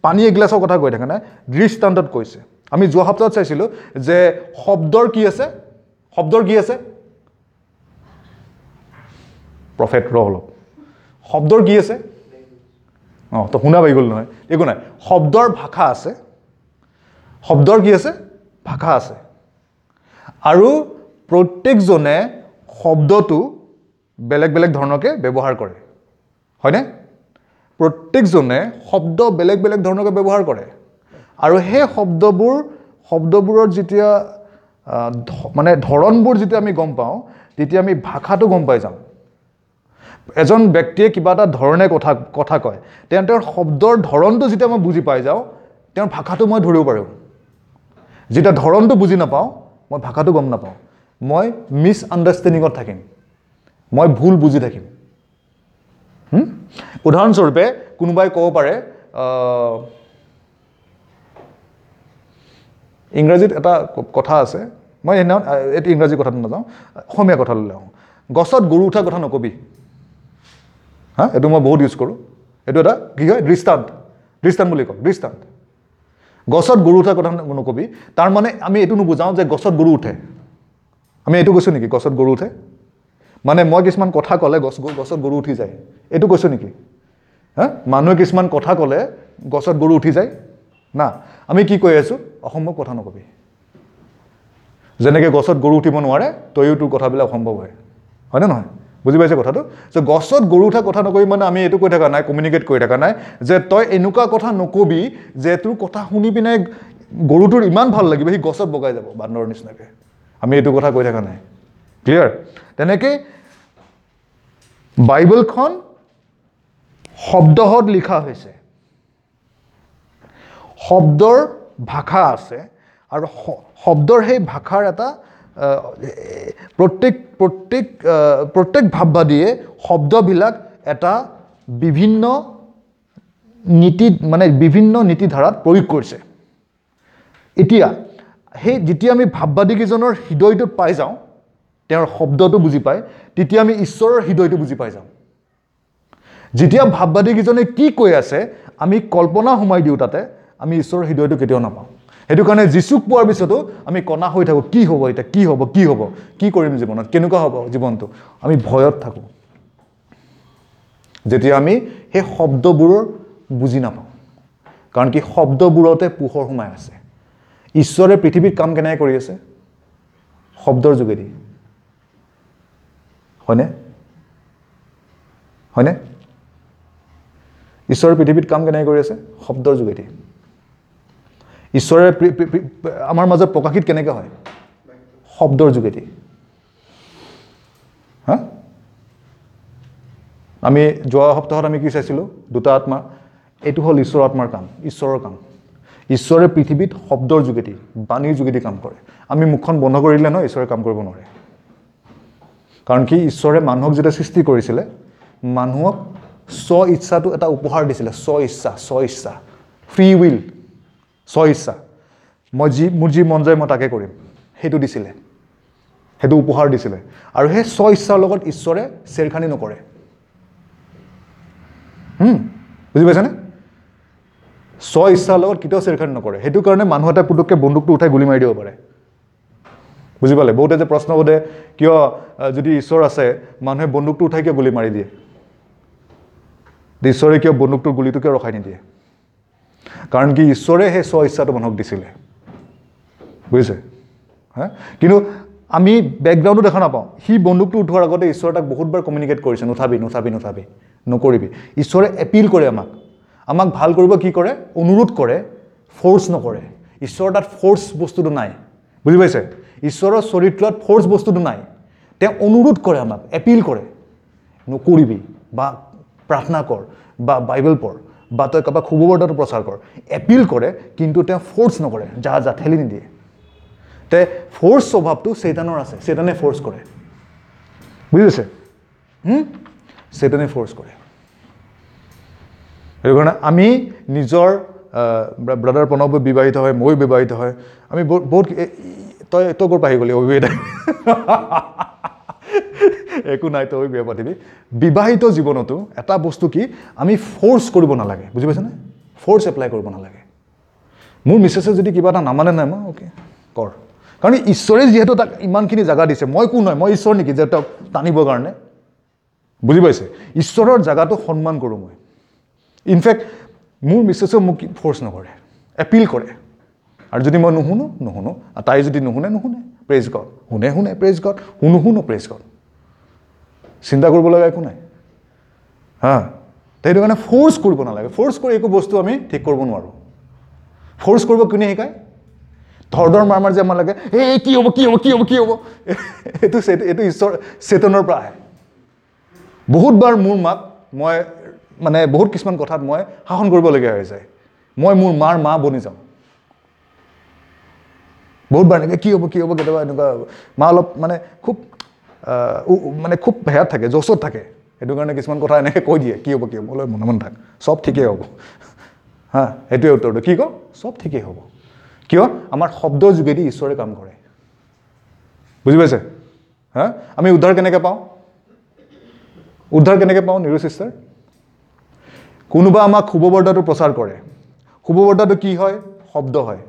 পানী এগিলাচৰ কথা কৈ থকা নাই, দৃষ্টান্তত কৈছে। আমি যোৱা সপ্তাহত চাইছিলোঁ যে শব্দৰ কি আছে, শব্দৰ কি আছে, প্ৰফেট ৰ অলপ, শব্দৰ কি আছে, অঁ তো শুনা পাই গ'ল নহয়, একো নাই। শব্দৰ ভাষা আছে, শব্দৰ কি আছে, ভাষা আছে। আৰু প্ৰত্যেকজনে শব্দটো বেলেগ বেলেগ ধৰণকে ব্যৱহাৰ কৰে, হয়নে? প্ৰত্যেকজনে শব্দ বেলেগ বেলেগ ধৰণকে ব্যৱহাৰ কৰে। আৰু সেই শব্দবোৰৰ যেতিয়া মানে ধৰণবোৰ যেতিয়া আমি গম পাওঁ, তেতিয়া আমি ভাষাটো গম পাই যাওঁ। এজন ব্যক্তিয়ে কিবা এটা ধৰণে কথা কয়, তেওঁৰ শব্দৰ ধৰণটো যেতিয়া মই বুজি পাই যাওঁ, তেওঁৰ ভাষাটো মই ধৰিব পাৰোঁ। যেতিয়া ধৰণটো বুজি নাপাওঁ, মই ভাষাটো গম নাপাওঁ, মই মিছ আণ্ডাৰষ্টেণ্ডিঙত থাকিম, মই ভুল বুজি থাকিম। উদাহৰণস্বৰূপে কোনোবাই ক'ব পাৰে, ইংৰাজীত এটা কথা আছে, মই সেইদিনাখন এইটো ইংৰাজী কথাটো নাযাওঁ, অসমীয়া কথালৈ আহোঁ। গছত গৰু উঠা কথা নকবি, হা, এইটো মই বহুত ইউজ কৰোঁ। এইটো এটা কি হয়, দৃষ্টান্ত, দৃষ্টান্ত বুলি কওঁ, দৃষ্টান্ত। গছত গৰু উঠা কথা নকবি, তাৰমানে আমি এইটো নুবুজাওঁ যে গছত গৰু উঠে। আমি এইটো কৈছোঁ নেকি গছত গৰু উঠে? মানে মই কিছুমান কথা ক'লে গছত গৰু উঠি যায়, এইটো কৈছোঁ নেকি? হা, মানুহে কিছুমান কথা ক'লে গছত গৰু উঠি যায় না, আমি কি কৈ আছোঁ, অসম্ভৱ কথা নকবি। যেনেকৈ গছত গৰু উঠিব নোৱাৰে, তয়ো তোৰ কথাবিলাক অসম্ভৱ হয়, হয়নে নহয়? বুজি পাইছে কথাটো? যে গছত গৰু উঠা কথা নকবি মানে আমি এইটো কৈ থকা নাই, কমিউনিকেট কৰি থকা নাই যে তই এনেকুৱা কথা নকবি যে তোৰ কথা শুনি পিনে গৰুটোৰ ইমান ভাল লাগিব, সি গছত বগাই যাব বান্দৰৰ নিচিনাকৈ। আমি এইটো কথা কৈ থকা নাই, ক্লিয়াৰ? তেনেকৈ বাইবেলখন শব্দহত লিখা হৈছে, শব্দৰ ভাষা আছে, আৰু শব্দৰ সেই ভাষাৰ এটা প্ৰত্যেক প্ৰত্যেক প্ৰত্যেক ভাৱবাদীয়ে শব্দবিলাক এটা বিভিন্ন নীতি, মানে বিভিন্ন নীতিধাৰাত প্ৰয়োগ কৰিছে। এতিয়া সেই যেতিয়া আমি ভাৱবাদীকেইজনৰ হৃদয়টোত পাই যাওঁ, তেওঁৰ শব্দটো বুজি পায়, তেতিয়া আমি ঈশ্বৰৰ হৃদয়টো বুজি পাই যাওঁ। যেতিয়া ভাৱবাদীকেইজনে কি কৈ আছে আমি কল্পনা সোমাই দিওঁ, তাতে আমি ঈশ্বৰৰ হৃদয়টো কেতিয়াও নাপাওঁ। সেইটো কাৰণে যীচুক পোৱাৰ পিছতো আমি কণা হৈ থাকোঁ, কি হ'ব এতিয়া, কি হ'ব, কি হ'ব, কি কৰিম জীৱনত, কেনেকুৱা হ'ব জীৱনটো, আমি ভয়ত থাকোঁ যেতিয়া আমি সেই শব্দবোৰৰ বুজি নাপাওঁ। কাৰণ কি, শব্দবোৰতে পোহৰ সোমাই আছে। ঈশ্বৰে পৃথিৱীত কাম কেনেকৈ কৰি আছে? শব্দৰ যোগেদি, হয়নে? হয়নে? ঈশ্বৰে পৃথিৱীত কাম কেনেকৈ কৰি আছে? শব্দৰ যোগেদি। ঈশ্বৰে আমাৰ মাজত প্ৰকাশিত কেনেকৈ হয়? শব্দৰ যোগেদি। হা, আমি যোৱা সপ্তাহত আমি কি চাইছিলোঁ? দুটা আত্মা। এইটো হ'ল ঈশ্বৰৰ আত্মাৰ কাম, ঈশ্বৰৰ কাম। ঈশ্বৰে পৃথিৱীত শব্দৰ যোগেদি, বাণীৰ যোগেদি কাম কৰে। আমি মুখখন বন্ধ কৰি দিলে নহয়, ঈশ্বৰে কাম কৰিব নোৱাৰে। কাৰণ কি, ঈশ্বৰে মানুহক যেতিয়া সৃষ্টি কৰিছিলে, মানুহক স্ব ইচ্ছাটো এটা উপহাৰ দিছিলে। স্ব ইচ্ছা, স্ব ইচ্ছা, ফ্ৰী will, স্ব ইচ্ছা, মই যি, মোৰ যি মন যায় মই তাকে কৰিম, সেইটো দিছিলে, সেইটো উপহাৰ দিছিলে। আৰু সেই স্ব ইচ্ছাৰ লগত ঈশ্বৰে চেৰখানি নকৰে। বুজি পাইছেনে? স্ব ইচ্ছাৰ লগত কেতিয়াও চেৰখানি নকৰে। সেইটো কাৰণে মানুহ এটা পুটুককৈ বন্দুকটো উঠাই গুলি মাৰি দিব পাৰে। বুজি পালে? বহুতে যে প্ৰশ্ন সোধে, কিয় যদি ঈশ্বৰ আছে মানুহে বন্দুকটো উঠাই কিয় গুলি মাৰি দিয়ে, ঈশ্বৰে কিয় বন্দুকটোৰ গুলিটো কিয় ৰখাই নিদিয়ে? কাৰণ কি, ঈশ্বৰে সেই স্ব ইচ্ছাটো মানুহক দিছিলে, বুজিছে? হা, কিন্তু আমি বেকগ্ৰাউণ্ডটো দেখা নাপাওঁ। সি বন্দুকটো উঠোৱাৰ আগতে ঈশ্বৰে তাক বহুতবাৰ কমিউনিকেট কৰিছে, নুঠাবি, নুঠাবি, নুঠাবি, নকৰিবি। ঈশ্বৰে এপিল কৰে আমাক, আমাক ভাল কৰিব কি কৰে, অনুৰোধ কৰে, ফ'ৰ্চ নকৰে। ঈশ্বৰৰ তাত ফ'ৰ্চ বস্তুটো নাই, বুজি পাইছে? ঈশ্বৰৰ চৰিত্ৰত ফ'ৰ্চ বস্তুটো নাই। তেওঁ অনুৰোধ কৰে আমাক, এপিল কৰে, নকৰিবি, বা প্ৰাৰ্থনা কৰ, বা বাইবেল পঢ়, বা তই কাৰোবাক শুভবাৰ্তাটো প্ৰচাৰ কৰ। এপিল কৰে, কিন্তু তেওঁ ফ'ৰ্চ নকৰে, যা যা ঠেলি নিদিয়ে। তে ফ'ৰ্চ স্বভাৱটো চৈতানৰ আছে, চৈতানে ফ'ৰ্চ কৰে, বুজি পাইছে? চৈতানে ফ'ৰ্চ কৰে। সেইটো কাৰণে আমি নিজৰ ব্ৰাদাৰ প্ৰণৱ বিবাহিত হয়, ময়ো বিবাহিত হয়, আমি বহুত তই ক'ৰ পৰা আহি গ'লি অবিবাহিত? একো নাই, তই বিয়া পাতিবি। বিবাহিত জীৱনতো এটা বস্তু কি, আমি ফ'ৰ্চ কৰিব নালাগে, বুজি পাইছেনে? ফ'ৰ্চ এপ্লাই কৰিব নালাগে। মোৰ মিছেছে যদি কিবা এটা নামানে, নাই মই অ'কে কৰ, কাৰণ ঈশ্বৰে যিহেতু তাক ইমানখিনি জেগা দিছে, মই কোন হয়, মই ঈশ্বৰ নেকি যে তেওঁক টানিবৰ কাৰণে? বুজি পাইছে? ঈশ্বৰৰ জেগাটো সন্মান কৰোঁ মই। ইনফেক্ট মোৰ মিছেছেও মোক ফ'ৰ্চ নকৰে, এপিল কৰে। আৰু যদি মই নুশুনো নুশুনো, আৰু তাই যদি নুশুনে নুশুনে, প্ৰেজ গড, শুনে শুনে প্ৰেজ গড, শুনো শুনো প্ৰেজ গড, চিন্তা কৰিব লগা একো নাই। হা, সেইটো কাৰণে ফ'ৰ্চ কৰিব নালাগে। ফ'ৰ্চ কৰি একো বস্তু আমি ঠিক কৰিব নোৱাৰোঁ। ফ'ৰ্চ কৰিব কোনে শিকায়? ধৰ ধৰ মাৰ মাৰ যে আমাৰ লাগে, এই কি হ'ব কি হ'ব কি হ'ব কি হ'ব, এইটো এইটো ঈশ্বৰ চেতনৰ পৰা আহে। বহুতবাৰ মোৰ মাক মই মানে বহুত কিছুমান কথাত মই শাসন কৰিবলগীয়া হৈ যায়, মই মোৰ মাৰ মা বনি যাওঁ বহুতবাৰ। এনেকৈ কি হ'ব কি হ'ব, কেতিয়াবা এনেকুৱা মা অলপ মানে খুব মানে খুব হেয়াত থাকে, জচত থাকে, সেইটো কাৰণে কিছুমান কথা এনেকৈ কৈ দিয়ে, কি হ'ব কি হ'ব, অলপ মনে মনে থাক, চব ঠিকেই হ'ব। হা, সেইটোৱে উত্তৰটো। কি কওঁ? চব ঠিকেই হ'ব। কিয়? আমাৰ শব্দৰ যোগেদি ঈশ্বৰে কাম কৰে, বুজি পাইছে? হা, আমি উদ্ধাৰ কেনেকৈ পাওঁ? উদ্ধাৰ কেনেকৈ পাওঁ নিৰু চিষ্টাৰ? কোনোবা আমাক শুভবাৰ্তাটো প্ৰচাৰ কৰে। শুভবাৰ্তাটো কি হয়? শব্দ হয়।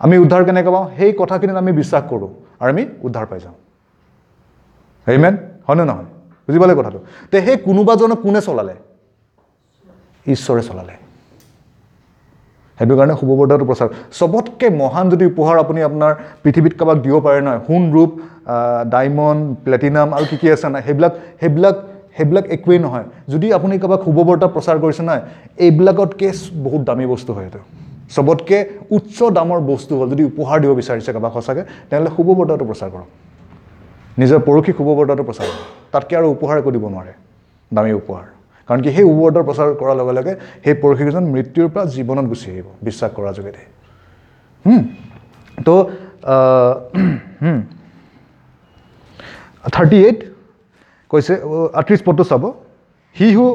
আমি উদ্ধাৰ কেনেকৈ পাওঁ? সেই কথাখিনিত আমি বিশ্বাস কৰোঁ আৰু আমি উদ্ধাৰ পাই যাওঁ। আমেন, হয়নে নহয়? বুজি পালে কথাটো? তে সেই কোনোবাজনক কোনে চলালে? ঈশ্বৰে চলালে। সেইটো কাৰণে শুভবাৰ্তাটো প্ৰচাৰ চবতকৈ মহান যদি উপহাৰ আপুনি আপোনাৰ পৃথিৱীত কাৰোবাক দিব পাৰে নহয়, সোণ, ৰূপ, ডায়মণ্ড, প্লেটিনাম আৰু কি কি আছে নাই, সেইবিলাক সেইবিলাক সেইবিলাক একোৱেই নহয়। যদি আপুনি কাৰোবাক শুভবাৰ্তা প্ৰচাৰ কৰিছে নহয়, এইবিলাকতকৈ বহুত দামী বস্তু হয়। এইটো চবতকৈ উচ্চ দামৰ বস্তু হ'ল, যদি উপহাৰ দিব বিচাৰিছে কাৰোবাক সঁচাকৈ, তেনেহ'লে শুভবাৰ্তাটো প্ৰচাৰ কৰক, নিজৰ পৰসী শুভবাৰ্তাটো প্ৰচাৰ কৰক। তাতকৈ আৰু উপহাৰ একো দিব নোৱাৰে, দামী উপহাৰ। কাৰণ কি, সেই শুভবাৰ্তা প্ৰচাৰ কৰাৰ লগে লগে সেই পৰসীজন মৃত্যুৰ পৰা জীৱনত গুচি আহিব বিশ্বাস কৰাৰ যোগেদি। তো 38 কৈছে, 38 পদটো চাব। হি হু,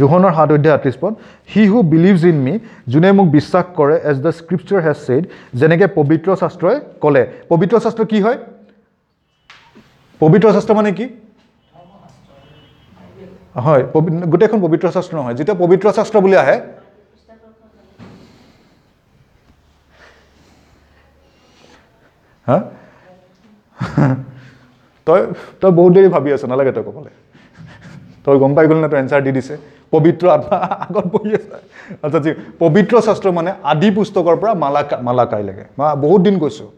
যোহনৰ 7 অধ্যায় 38 পদ, he who believes in me, যোনে মোক বিশ্বাস কৰে, as the scripture has said, যেনেকৈ পবিত্ৰ শাস্ত্ৰই ক'লে। পবিত্ৰ শাস্ত্ৰ কি হয়? পবিত্ৰ শাস্ত্ৰ মানে কি হয়? গোটেইখন পবিত্ৰ শাস্ত্ৰ নহয়। যেতিয়া পবিত্ৰ শাস্ত্ৰ বুলি আহে, হা, তই তই বহুত দেৰি ভাবি আছ, নালাগে তই ক'বলৈ, তই গম পাই গ'ল নে? তই এনচাৰ দি দিছে। পবিত্ৰ আত্মা আগত বহি আছে। আচ্ছা, পবিত্ৰ শাস্ত্ৰ মানে আদি পুস্তকৰ পৰা মালাকাইলৈকে, মই বহুত দিন কৈছোঁ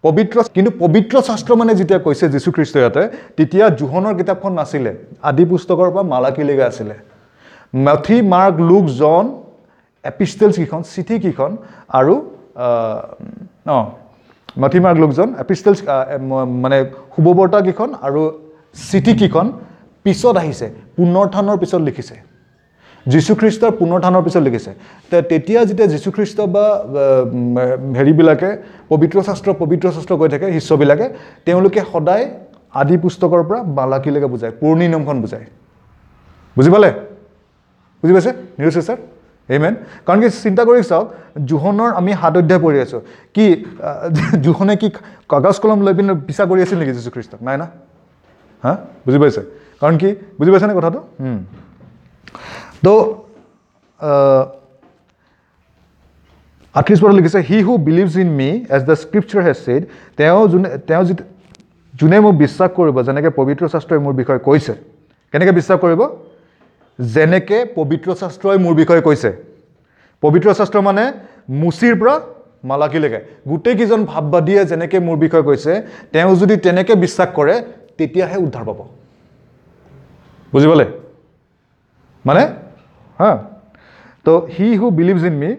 পবিত্ৰ। কিন্তু পবিত্ৰ শাস্ত্ৰ মানে যেতিয়া কৈছে যীশুখ্ৰীষ্ট ইয়াতে, তেতিয়া যোহনৰ কিতাপখন নাছিলে, আদি পুস্তকৰ পৰা মালাকিলৈকে আছিলে। মেথি, মাৰ্ক, লুক, জন, এপিষ্টেলছ কেইখন, চিঠি কেইখন, আৰু মেথি, মাৰ্ক, লুক, জন, এপিষ্টেলছ মানে শুভবাৰ্তা কেইখন আৰু চিঠি কেইখন পিছত আহিছে, পুনৰুত্থানৰ পিছত লিখিছে, যীশুখ্ৰীষ্টৰ পুনৰুত্থানৰ পিছত লিখিছে। তেতিয়া যেতিয়া যীশুখ্ৰীষ্ট বা হেৰিবিলাকে পবিত্ৰ শাস্ত্ৰ পবিত্ৰ শাস্ত্ৰ কৈ থাকে শিষ্যবিলাকে, তেওঁলোকে সদায় আদি পুস্তকৰ পৰা মালাকিলৈকে বুজায়, পুৰণি নিয়মখন বুজায়। বুজি পালে? বুজি পাইছে নিৰু চিষ্টাৰ? আমেন। কাৰণ কি, চিন্তা কৰি চাওক, যোহনৰ আমি 7 অধ্যায় পঢ়ি আছোঁ, কি যোহনে কি কাগজ কলম লৈ পিনে পিছা কৰি আছিল নেকি যীশুখ্ৰীষ্টক? নাই না। হা, বুজি পাইছে? কাৰণ কি, বুজি পাইছেনে কথাটো? তো 38 পদত লিখিছে, he who believes in me as the scripture has said, তেওঁ যোনে মোক বিশ্বাস কৰিব, যেনেকৈ পবিত্ৰ শাস্ত্ৰই মোৰ বিষয়ে কৈছে। কেনেকৈ বিশ্বাস কৰিব? যেনেকৈ পবিত্ৰ শাস্ত্ৰই মোৰ বিষয়ে কৈছে। পবিত্ৰ শাস্ত্ৰ মানে মুচিৰ পৰা মালাকিলৈকে গোটেইকেইজন ভাববাদীয়ে যেনেকৈ মোৰ বিষয়ে কৈছে, তেওঁ যদি তেনেকৈ বিশ্বাস কৰে তেতিয়াহে উদ্ধাৰ পাব। বুজি পালে মানে? হা, তো he who believes in me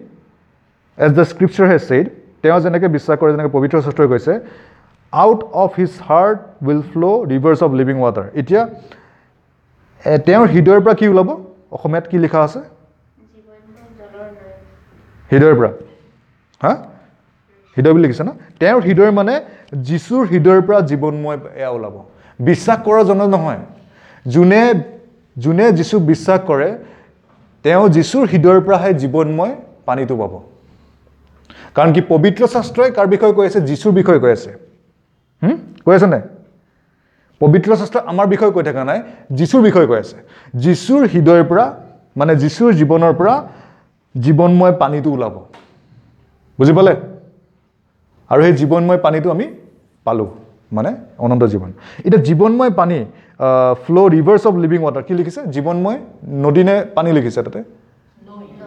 as the scripture has said, তেওঁ যেনেকৈ বিশ্বাস কৰে, যেনেকৈ পবিত্ৰ শাস্ত্ৰই কৈছে, out of his heart will flow rivers of living water. এতিয়া তেওঁৰ হৃদয়ৰ পৰা কি ওলাব? অসমীয়াত কি লিখা আছে? হৃদয়ৰ পৰা, হা, হৃদয় বুলি লিখিছে ন? তেওঁৰ হৃদয় মানে যীশুৰ হৃদয়ৰ পৰা জীৱনময় এয়া ওলাব। বিশ্বাস কৰাজনৰ নহয়, যোনে যোনে যীশুক বিশ্বাস কৰে তেওঁ যীশুৰ হৃদয়ৰ পৰাহে জীৱনময় পানীটো পাব। কাৰণ কি, পবিত্ৰ শাস্ত্ৰই কাৰ বিষয়ে কৈ আছে? যীশুৰ বিষয়ে কৈ আছে। কৈ আছে নাই? পবিত্ৰ শাস্ত্ৰ আমাৰ বিষয়ে কৈ থকা নাই, যীশুৰ বিষয়ে কৈ আছে। যীশুৰ হৃদয়ৰ পৰা, মানে যীশুৰ জীৱনৰ পৰা জীৱনময় পানীটো ওলাব। বুজি পালে? আৰু সেই জীৱনময় পানীটো আমি পালোঁ, মানে অনন্ত জীৱন। এতিয়া জীৱনময় পানী, flow rivers of living water, কি লিখিছে? জীৱনময় নদী নে পানী লিখিছে তাতে?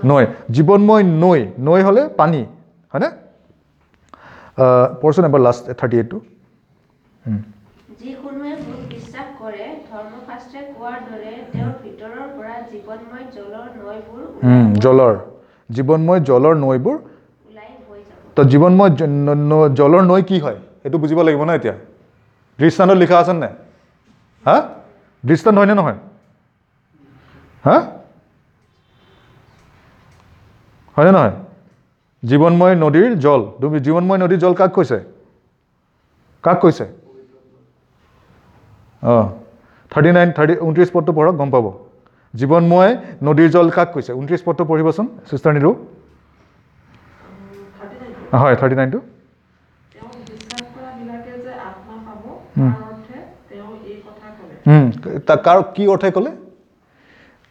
নৈ। জীৱনময় নৈ, নৈ হ'লে পানী, হয়নে? পঢ়চোন এবাৰ লাষ্ট 38টো। যিকোনোৱে মোক বিশ্বাস কৰে, ধৰ্মশাস্ত্ৰে কোৱাৰ দৰে তেওঁৰ ভিতৰৰ পৰা জীৱনময় জলৰ নৈবোৰ জলৰ, জীৱনময় জলৰ নৈবোৰ ওলাই বৈ যাব। তো জীৱনময় জলৰ নৈ কি হয় সেইটো বুজিব লাগিব ন। এতিয়া দৃষ্টান্তত লিখা আছে নাই? হা, দৃষ্টান্ত হয়নে নহয়? হা, হয়নে নহয়? জীৱনময় নদীৰ জল, জীৱনময় নদীৰ জল কাক কৈছে? কাক কৈছে? অঁ, 39, 29 পদটো পঢ়ক, গম পাব। জীৱনময় নদীৰ জল কাক কৈছে? 29 পদটো পঢ়িবচোন চিষ্টাৰ নীলু। হয়, 39টো। কাৰ কি অৰ্থে ক'লে?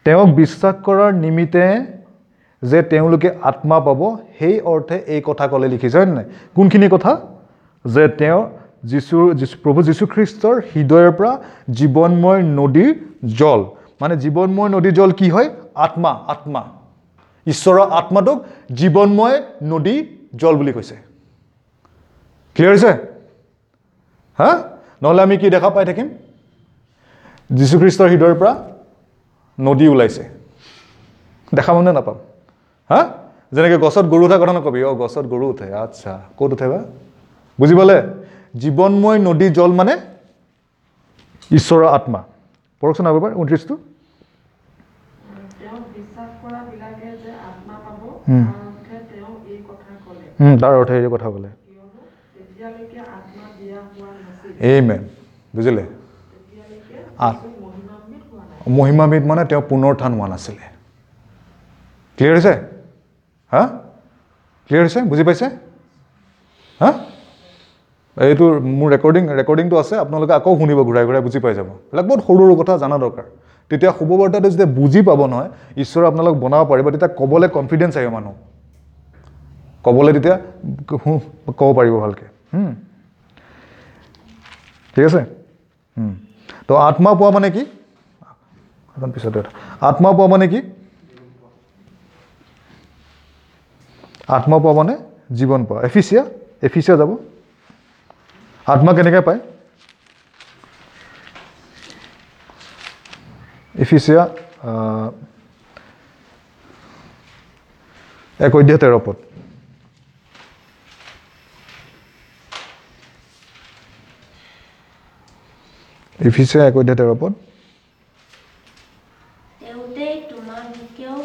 তেওঁক বিশ্বাস কৰাৰ নিমিত্তে যে তেওঁলোকে আত্মা পাব, সেই অৰ্থে এই কথা ক'লে লিখিছে, হয় নাই? কোনখিনি কথা? যে তেওঁ যীশু প্ৰভু যীশুখ্ৰীষ্টৰ হৃদয়ৰ পৰা জীৱনময় নদীৰ জল, মানে জীৱনময় নদীৰ জল কি হয়? আত্মা। আত্মা, ঈশ্বৰৰ আত্মাটোক জীৱনময় নদী জল বুলি কৈছে। ক্লিয়াৰ হৈছে? হা, নহ'লে আমি কি দেখা পাই থাকিম? যীশুখ্ৰীষ্টৰ হৃদয়ৰ পৰা নদী ওলাইছে, দেখা পাম নে নাপাম? হা, যেনেকৈ গছত গৰু উঠা কথা নকবি, অ গছত গৰু উঠে, আচ্ছা ক'ত উঠে বা? বুজি পালে? জীৱনময় নদী জল মানে ঈশ্বৰৰ আত্মা। পঢ়কচোন আৰু এবাৰ 29টো। তাৰ অৰ্থে এই কথা ক'লে। আমেন। বুজিলে? মহিমাবিদ মানে তেওঁ পুনৰুত্থান হোৱা নাছিলে। ক্লিয়াৰ হৈছে? হা, ক্লিয়াৰ হৈছে? বুজি পাইছে? হা, এইটো মোৰ ৰেকৰ্ডিংটো আছে, আপোনালোকে আকৌ শুনিব, ঘূৰাই ঘূৰাই বুজি পাই যাব। এইবিলাক বহুত সৰু সৰু কথা জনা দৰকাৰ। তেতিয়া শুভবাৰ্তাটো যেতিয়া বুজি পাব নহয়, ঈশ্বৰে আপোনালোক বনাব পাৰিব, তেতিয়া ক'বলৈ কনফিডেঞ্চ আহিব, মানুহ ক'বলৈ তেতিয়া ক'ব পাৰিব ভালকৈ। ঠিক আছে। তো আত্মা পোৱা মানে কি? পিছতে আত্মা পোৱা মানে কি? আত্মা পোৱা মানে জীৱন পোৱা। এফিচিয়া, এফিচিয়া যাব। আত্মা কেনেকৈ পায়? এফিচিয়া 1:13। এফিচিয়া 1:13। তেওঁতেই তোমালোকেও